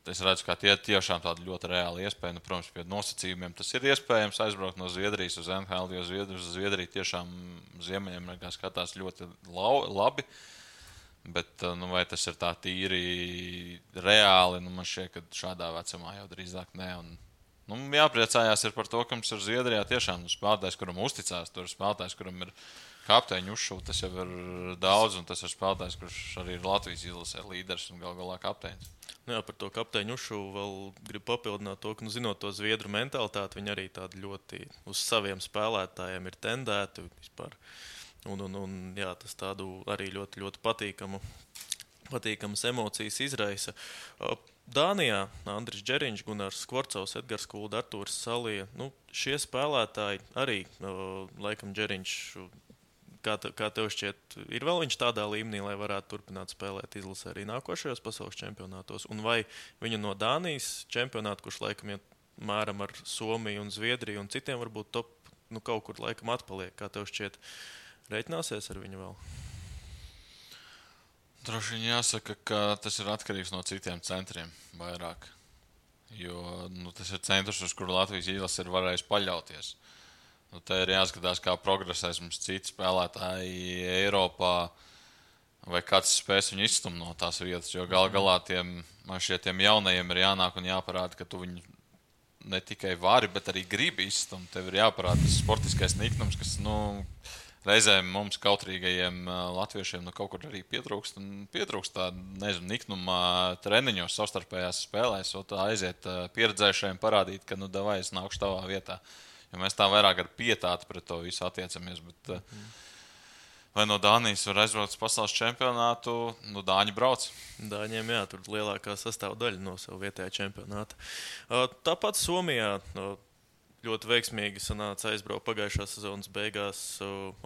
es redzu, ka tie tiešām tāda ļoti reāla iespēja. Protams, pie nosacījumiem tas ir iespējams aizbraukt no Zviedrijas uz NHL, jo Zviedrija tiešām Ziemeļamerikā skatās ļoti labi. Bet vai tas ir tā tīri reāli, man šķiet, ka šādā vecumā jau drīzāk ne. Jāpriecājās ir par to, ka mums ir Zviedrijā tiešām spēlētājs, kuram uzticās, tur spēlētājs, kuram ir kapteiņu uzšūta, tas jau ir daudz, un tas ir spēlētājs, kurš arī ir Latvijas izlasē līderis un galā kapteinis.
Par to kapteiņu uzšūvu vēl gribu papildināt to, ka, zinot to zviedru mentalitāti, viņi arī tādi ļoti uz saviem spēlētājiem ir tendēti vispār. Tas tādu arī ļoti, ļoti patīkamas emocijas izraisa. Dānijā Andris Džeriņš, Gunārs Skvorcovs, Edgars Kulda, Artūrs Salija. Šie spēlētāji arī, laikam Džeriņš, kā tev šķiet, ir vēl viņš tādā līmenī, lai varētu turpināt spēlēt izlasē arī nākošajos pasaules čempionātos? Un vai viņu no Dānijas čempionāta, kurš laikam iet mēram ar Somiju un Zviedriju un citiem varbūt top, kaut kur laikam atpaliek, kā tev šķiet, reiķināsies ar viņu vēl?
Droši vien jāsaka, ka tas ir atkarīgs no citiem centriem vairāk. Jo tas ir centrs, uz kuru Latvijas izlase ir varējis paļauties. Te ir jāskatās, kā progresēs mums citi spēlētāji Eiropā, vai kāds spēs viņu izstumt no tās vietas. Jo galā tiem jaunajiem ir jānāk un jāparāda, ka tu viņu ne tikai vari, bet arī gribi izstumt. Tev ir jāparāda tas sportiskais niknums, kas reizēm mums kautrīgajiem latviešiem kaut kur arī pietrūkst tā, nezinu, niknuma treniņos, savstarpējās spēlēs, un tā aiziet pieredzējušajiem parādīt, ka, davai, es nākušu tavā vietā. Jo mēs tā vairāk ar pietāti pret to visu attiecamies, bet vai no Dānijas var aizbraukt uz pasaules čempionātu, Dāņi brauc.
Dāņiem, jā, tur lielākā sastāvdaļa no savu vietējā čempionāta. Tāpat Somijā ļoti veiksmīgi sanāca aizbraukt pagājušās sezonas beigās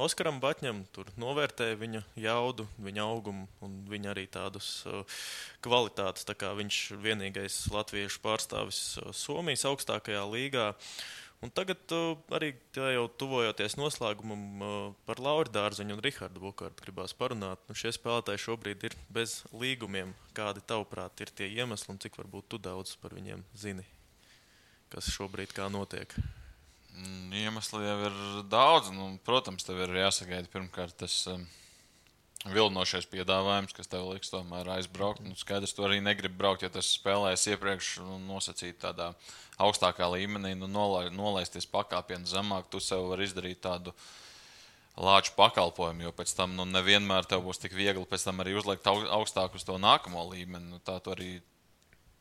Oskaram Batņam. Tur novērtēja viņa jaudu, viņa augumu un viņa arī tādus kvalitātes. Tā kā viņš vienīgais latviešu pārstāvis Somijas augstākajā līgā. Un tagad arī jau tuvojoties noslēgumam par Lauri Dārziņu un Rihardu Bukārtu gribās parunāt. Šie spēlētāji šobrīd ir bez līgumiem. Kādi tavuprāt ir tie iemesli un cik varbūt tu daudz par viņiem zini? Kas šobrīd kā notiek?
Iemesli jau ir daudz. Protams, tev ir jāsagaida pirmkārt tas vilinošais piedāvājums, kas tev liks tomēr aizbraukt. Skaidrs, tu arī negribi braukt, ja tas spēlēs iepriekš nosacīt tādā augstākā līmenī, nolaisties pakāpienu zemāk, tu sev vari izdarīt tādu lāču pakalpojumu, jo pēc tam nevienmēr tev būs tik viegli pēc tam arī uzliekt augstāk uz to nākamo līmeni. Tā tu arī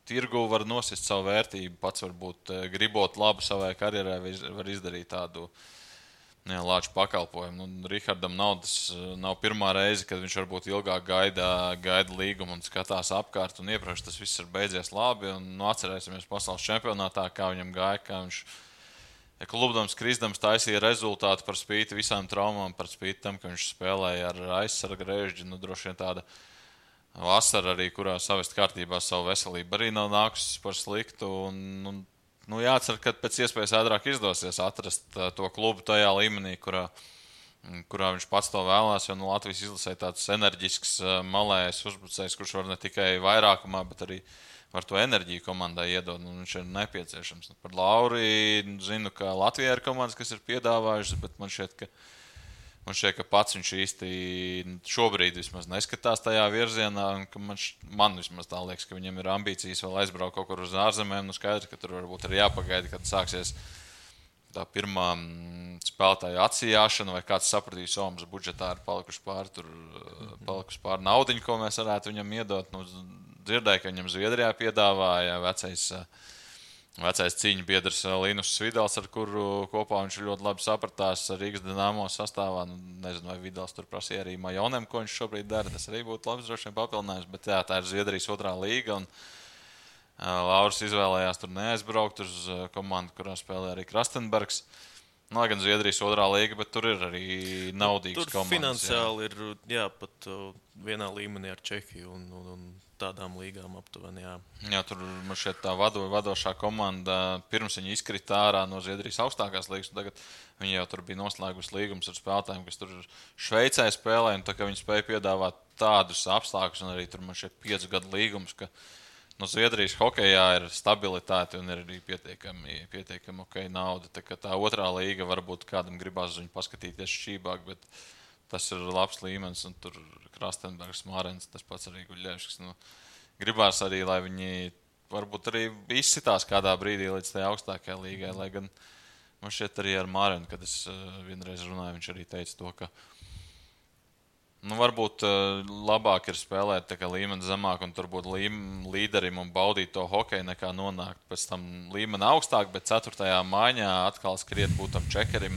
tirgu var nosist savu vērtību, pats varbūt gribot labu savai karjerai, var izdarīt tādu lāču pakalpojumu. Rihardam nav pirmā reize, kad viņš varbūt ilgāk gaida līgumu un skatās apkārt, un iepriekš tas viss ir beidzies labi, un atcerēsimies pasaules čempionātā, kā viņam gāja, kā viņš klubdams, kristams taisīja rezultātu par spīti visām traumām, par spīti tam, ka viņš spēlēja ar aizsarga režģi, droši vien tāda vasara arī, kurā savest kārtībā savu veselību arī nav nākusi par sliktu, un jācer, ka pēc iespējas ātrāk izdosies atrast to klubu tajā līmenī, kurā viņš pats to vēlās, jo Latvijas izlasē tāds enerģisks malējs uzbrucējs, kurš var ne tikai vairākumā, bet arī var to enerģiju komandai iedot, un viņš ir nepieciešams. Par Lauri zinu, ka Latvijā ir komandas, kas ir piedāvājušas, bet man šķiet, ka pats viņš īsti šobrīd vismaz neskatās tajā virzienā, un ka man vismaz tā liekas, ka viņam ir ambīcijas vēl aizbraukt kaut kur uz ārzemēm. Skaidrs, ka tur varbūt ir jāpagaida, kad sāksies tā pirmā spēlētāja atsijāšana, vai kāds sapratīs, mums budžetā ir palikuši pār naudiņu, ko mēs varētu viņam iedot. Dzirdēju, ka viņam Zviedrijā piedāvāja vecais cīņu biedrs Linus Vidals, ar kuru kopā viņš ļoti labi sapratās Rīgas Dinamo sastāvā. Nezinu, vai Vidals tur prasīja arī Majonem, ko viņš šobrīd dara. Tas arī būtu labs droši vien papildinājums, bet jā, tā ir Zviedrijas otrā līga, un Lauris izvēlējās tur neaizbraukt uz komandu, kurā spēlē arī Krastenbergs. Lai gan Zviedrijas otrā līga, bet tur ir arī naudīgas
tur
komandas.
Finansiāli ir pat vienā līmenī ar Čehiju un tādām līgām aptuveni.
Jā, tur man šeit tā vadošā komanda pirms viņa izkrita ārā no Zviedrijas augstākās līgas. Tagad viņi jau tur bija noslēgusi līgumus ar spēlētājiem, kas tur Šveicē spēlē. Tā kā viņi spēja piedāvāt tādus apstākļus, un arī tur man šeit 5 gadu līgums, ka no Zviedrijas hokejā ir stabilitāte un ir arī pietiekami ok nauda. Tā otrā līga varbūt kādam gribās uz viņu paskatīties šķībāk, bet tas ir labs līmenis, un tur Krastenbergs, Mārens, tas pats arī Guļļevskis. Gribās arī, lai viņi varbūt arī izsitās kādā brīdī līdz tajā augstākajai līgai, lai gan man šķiet arī ar Mārenu, kad es vienreiz runāju, viņš arī teica to, ka varbūt labāk ir spēlēt tā kā līmeni zemāk un tur būt līderim un baudīt to hokeju, nekā nonākt pēc tam līmeni augstāk, bet 4. maiņā atkal skriet būt tam čekerim.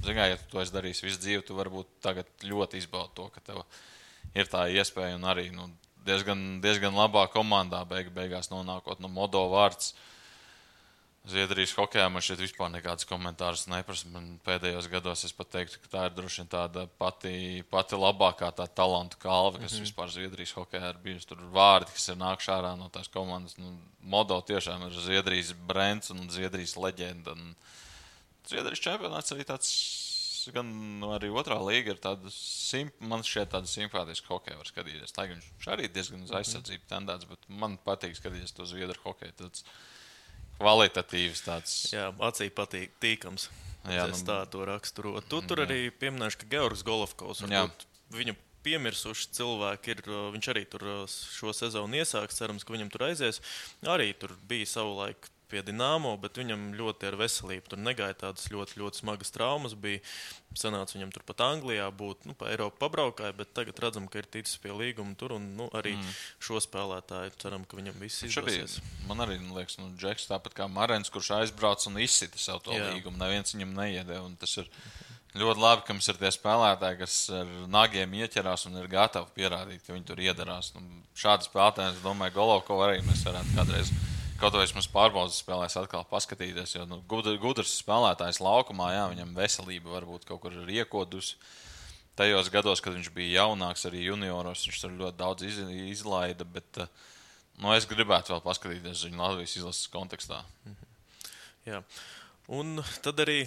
Ja tu to esi darījis visu dzīvi, tu varbūt tagad ļoti izbaudi to, ka tev ir tā iespēja un arī diezgan labā komandā beigās nonākot. Modo vārds Zviedrijas hokejā man šeit vispār nekādas komentārus neprasa. Man pēdējos gados es pat teiktu, ka tā ir droši vien tāda pati labākā tā talantu kalve, kas vispār Zviedrijas hokejā ir bijusi. Tur vārdi, kas ir nākuši ārā no tās komandas. Modo tiešām ir Zviedrijas brands un Zviedrijas leģenda. Zviedrijas čempionāts arī tāds, gan arī otrā līga ir tāda, man šķiet tāda simpātiska hokeja var skatīties. Tā viņš arī diezgan uz aizsardzību tendēts, bet man patīk skatīties to Zviedru hokeju. Tāds kvalitatīvs tāds.
Jā, acī patīk tīkams. Jā, es tā to raksturo. Tur arī pieminēšu, ka Georgs Golovkovs, viņu piemirsuši cilvēki ir, viņš arī tur šo sezonu iesāks, cerams, ka viņam tur aizies. Arī tur bija savulaik pie Dinamo, bet viņam ļoti ar veselību. Tur negāja tādas ļoti, ļoti smagas traumas. Bija sanāca viņam turpat Anglijā būt, pa Eiropu pabraukāja, bet tagad redzam, ka ir ticis pie līguma tur un arī šo spēlētāju ceram, ka viņam viss izdosies.
Man arī liekas, Džeks tāpat kā Marens, kurš aizbrauc un izsita savu to līgumu. Neviens viņam neiedē, un tas ir ļoti labi, ka mums ir tie spēlētāji, kas ar nagiem ieķerās un ir gatavi pierādīt, ka viņi tur iedarās. Šādi spēlētāji, es domāju, Golovko arī mēs varētu kādreiz, kaut vai mums pārbaudas spēlēs atkal paskatīties, jo gudrs spēlētājs laukumā, jā, viņam veselība varbūt kaut kur ir iekodusi. Tajos gados, kad viņš bija jaunāks, arī junioros, viņš tur ļoti daudz izlaida, bet es gribētu vēl paskatīties viņu Latvijas izlases kontekstā.
Jā. Un tad arī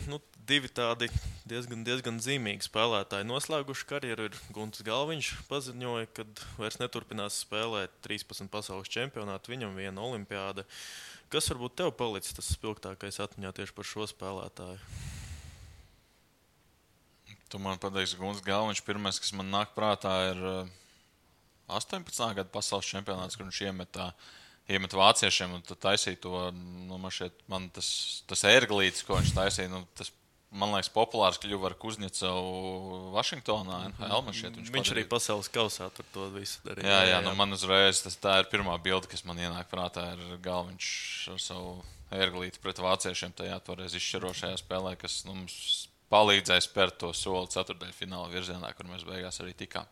divi tādi diezgan zīmīgi spēlētāji noslēguši karjeru. Ir Guntis Galviņš paziņoja, ka vairs neturpinās spēlēt 13 pasaules čempionātu, viņam viena olimpiāda. Kas varbūt tev palicis tas spilgtākais atmiņā tieši par šo spēlētāju?
Tu man pateiksi, Guntis Galviņš pirmais, kas man nāk prātā, ir 18. gada pasaules čempionāts, kur viņš iemet vāciešiem un taisīja to, man tas ērglītis, ko viņš taisīja, tas, man liekas, populārs kļuva ar Kuzņecovu Vašingtonā, NHL.
Viņš arī pasaules kausā tur to visu darīja.
Jā, man uzreiz tā ir pirmā bilde, kas man ienāk prātā, ir Galviņš ar savu ērglīti pret vāciešiem tajā toreiz izšķirošajā spēlē, kas mums palīdzēja spērt to soli ceturtdaļfināla virzienā, kur mēs beigās arī tikām.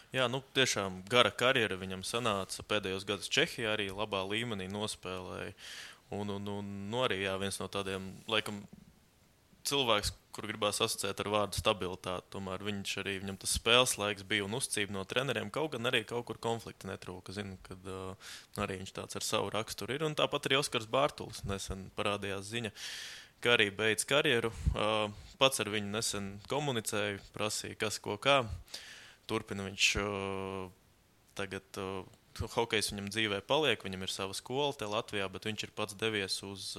Jā, tiešām gara karjera viņam sanāca. Pēdējos gadus Čehijā arī labā līmenī nospēlēja. Un arī viens no tādiem, laikam, cilvēks, kur gribās asociēt ar vārdu stabilitāti. Tomēr viņam tas spēles laiks bija un uzcība no treneriem. Kaut gan arī kaut kur konflikti netrūka. Zinu, kad arī viņš tāds ar savu raksturu ir. Un tāpat arī Oskars Bārtulis nesen parādījās ziņa, ka arī beidz karjeru. Pats ar viņu nesen komunicēju, prasīja, kas ko kā. Turpina viņš tagad, hokejs viņam dzīvē paliek, viņam ir sava skola te Latvijā, bet viņš ir pats devies uz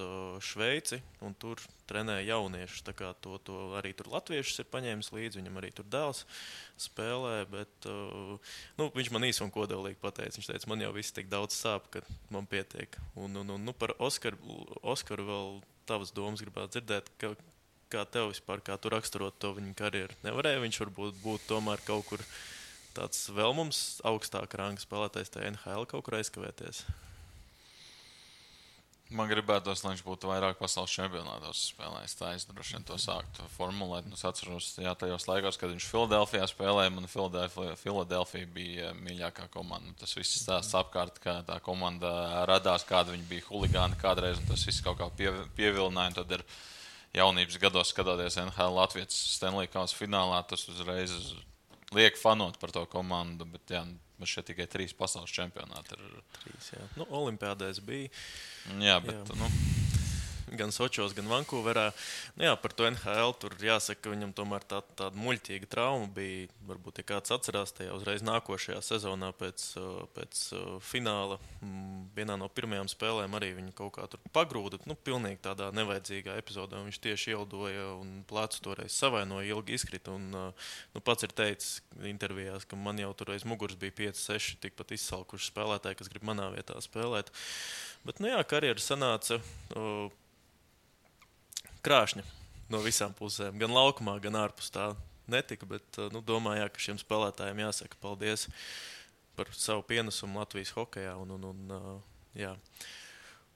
Šveici un tur trenē jauniešus. Tā kā to arī tur latviešus ir paņēmis līdzi, viņam arī tur dēls spēlē, bet viņš man īsi un kodolīgi pateica. Viņš teica, man jau viss tik daudz sāp, ka man pietiek. Un par Oskaru vēl tavas domas gribētu dzirdēt, kā tev vispār, kā tu raksturot to viņa karjeru? Nevarēja viņš varbūt būt tomēr kaut kur tāds vēl mums augstāk ranga spēlētājs tajā NHL kaut kur aizkavēties?
Man gribētos, lai viņš būtu vairāk pasaules čempionātos spēlējis. Tā es droši vien to sāktu formulēt. Es atceros, tajos laikos, kad viņš Filadelfijā spēlēja, man Filadelfija bija mīļākā komanda. Tas viss stāsts apkārt, kā tā komanda radās, kāda viņa bija huligāni kādreiz, un tas viss kaut kā pievilināja. Tad ir jaunības gados skatoties NHL Latvijas Stanley Kausa finālā, tas uzreiz liek fanot par to komandu, bet man šeit tikai 3 pasaules čempionāti ir.
3, jā. Olimpiādēs bija.
Jā, bet
gan Sočos, gan Vankūverā. Par to NHL tur jāsaka, ka viņam tomēr tāda muļķīga trauma bija. Varbūt, ja kāds atcerās, tajā uzreiz nākošajā sezonā pēc fināla vienā no pirmajām spēlēm arī viņu kaut kā tur pagrūda. Pilnīgi tādā nevajadzīgā epizodē. Viņš tieši ieldoja un plecu toreiz savainoja, ilgi izkrita. Pats ir teicis intervijās, ka man jau tur aiz muguras bija 5-6 tikpat izsalkuši spēlētāji, kas grib manā vietā spēlēt. Bet, karjera sanāca krāšņa no visām pusēm. Gan laukumā, gan ārpus tā netika, bet domāju, ka šiem spēlētājiem jāsaka paldies par savu pienesumu Latvijas hokejā.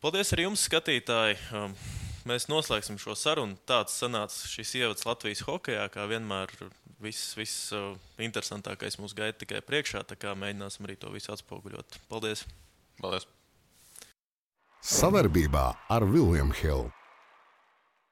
Paldies arī jums, skatītāji. Mēs noslēgsim šo sarunu. Tāds sanāca šis ievads Latvijas hokejā, kā vienmēr viss interesantākais mūs gaida tikai priekšā, tā kā mēģināsim arī to visu atspoguļot. Paldies!
Paldies!
Savarbībā ar William Hill.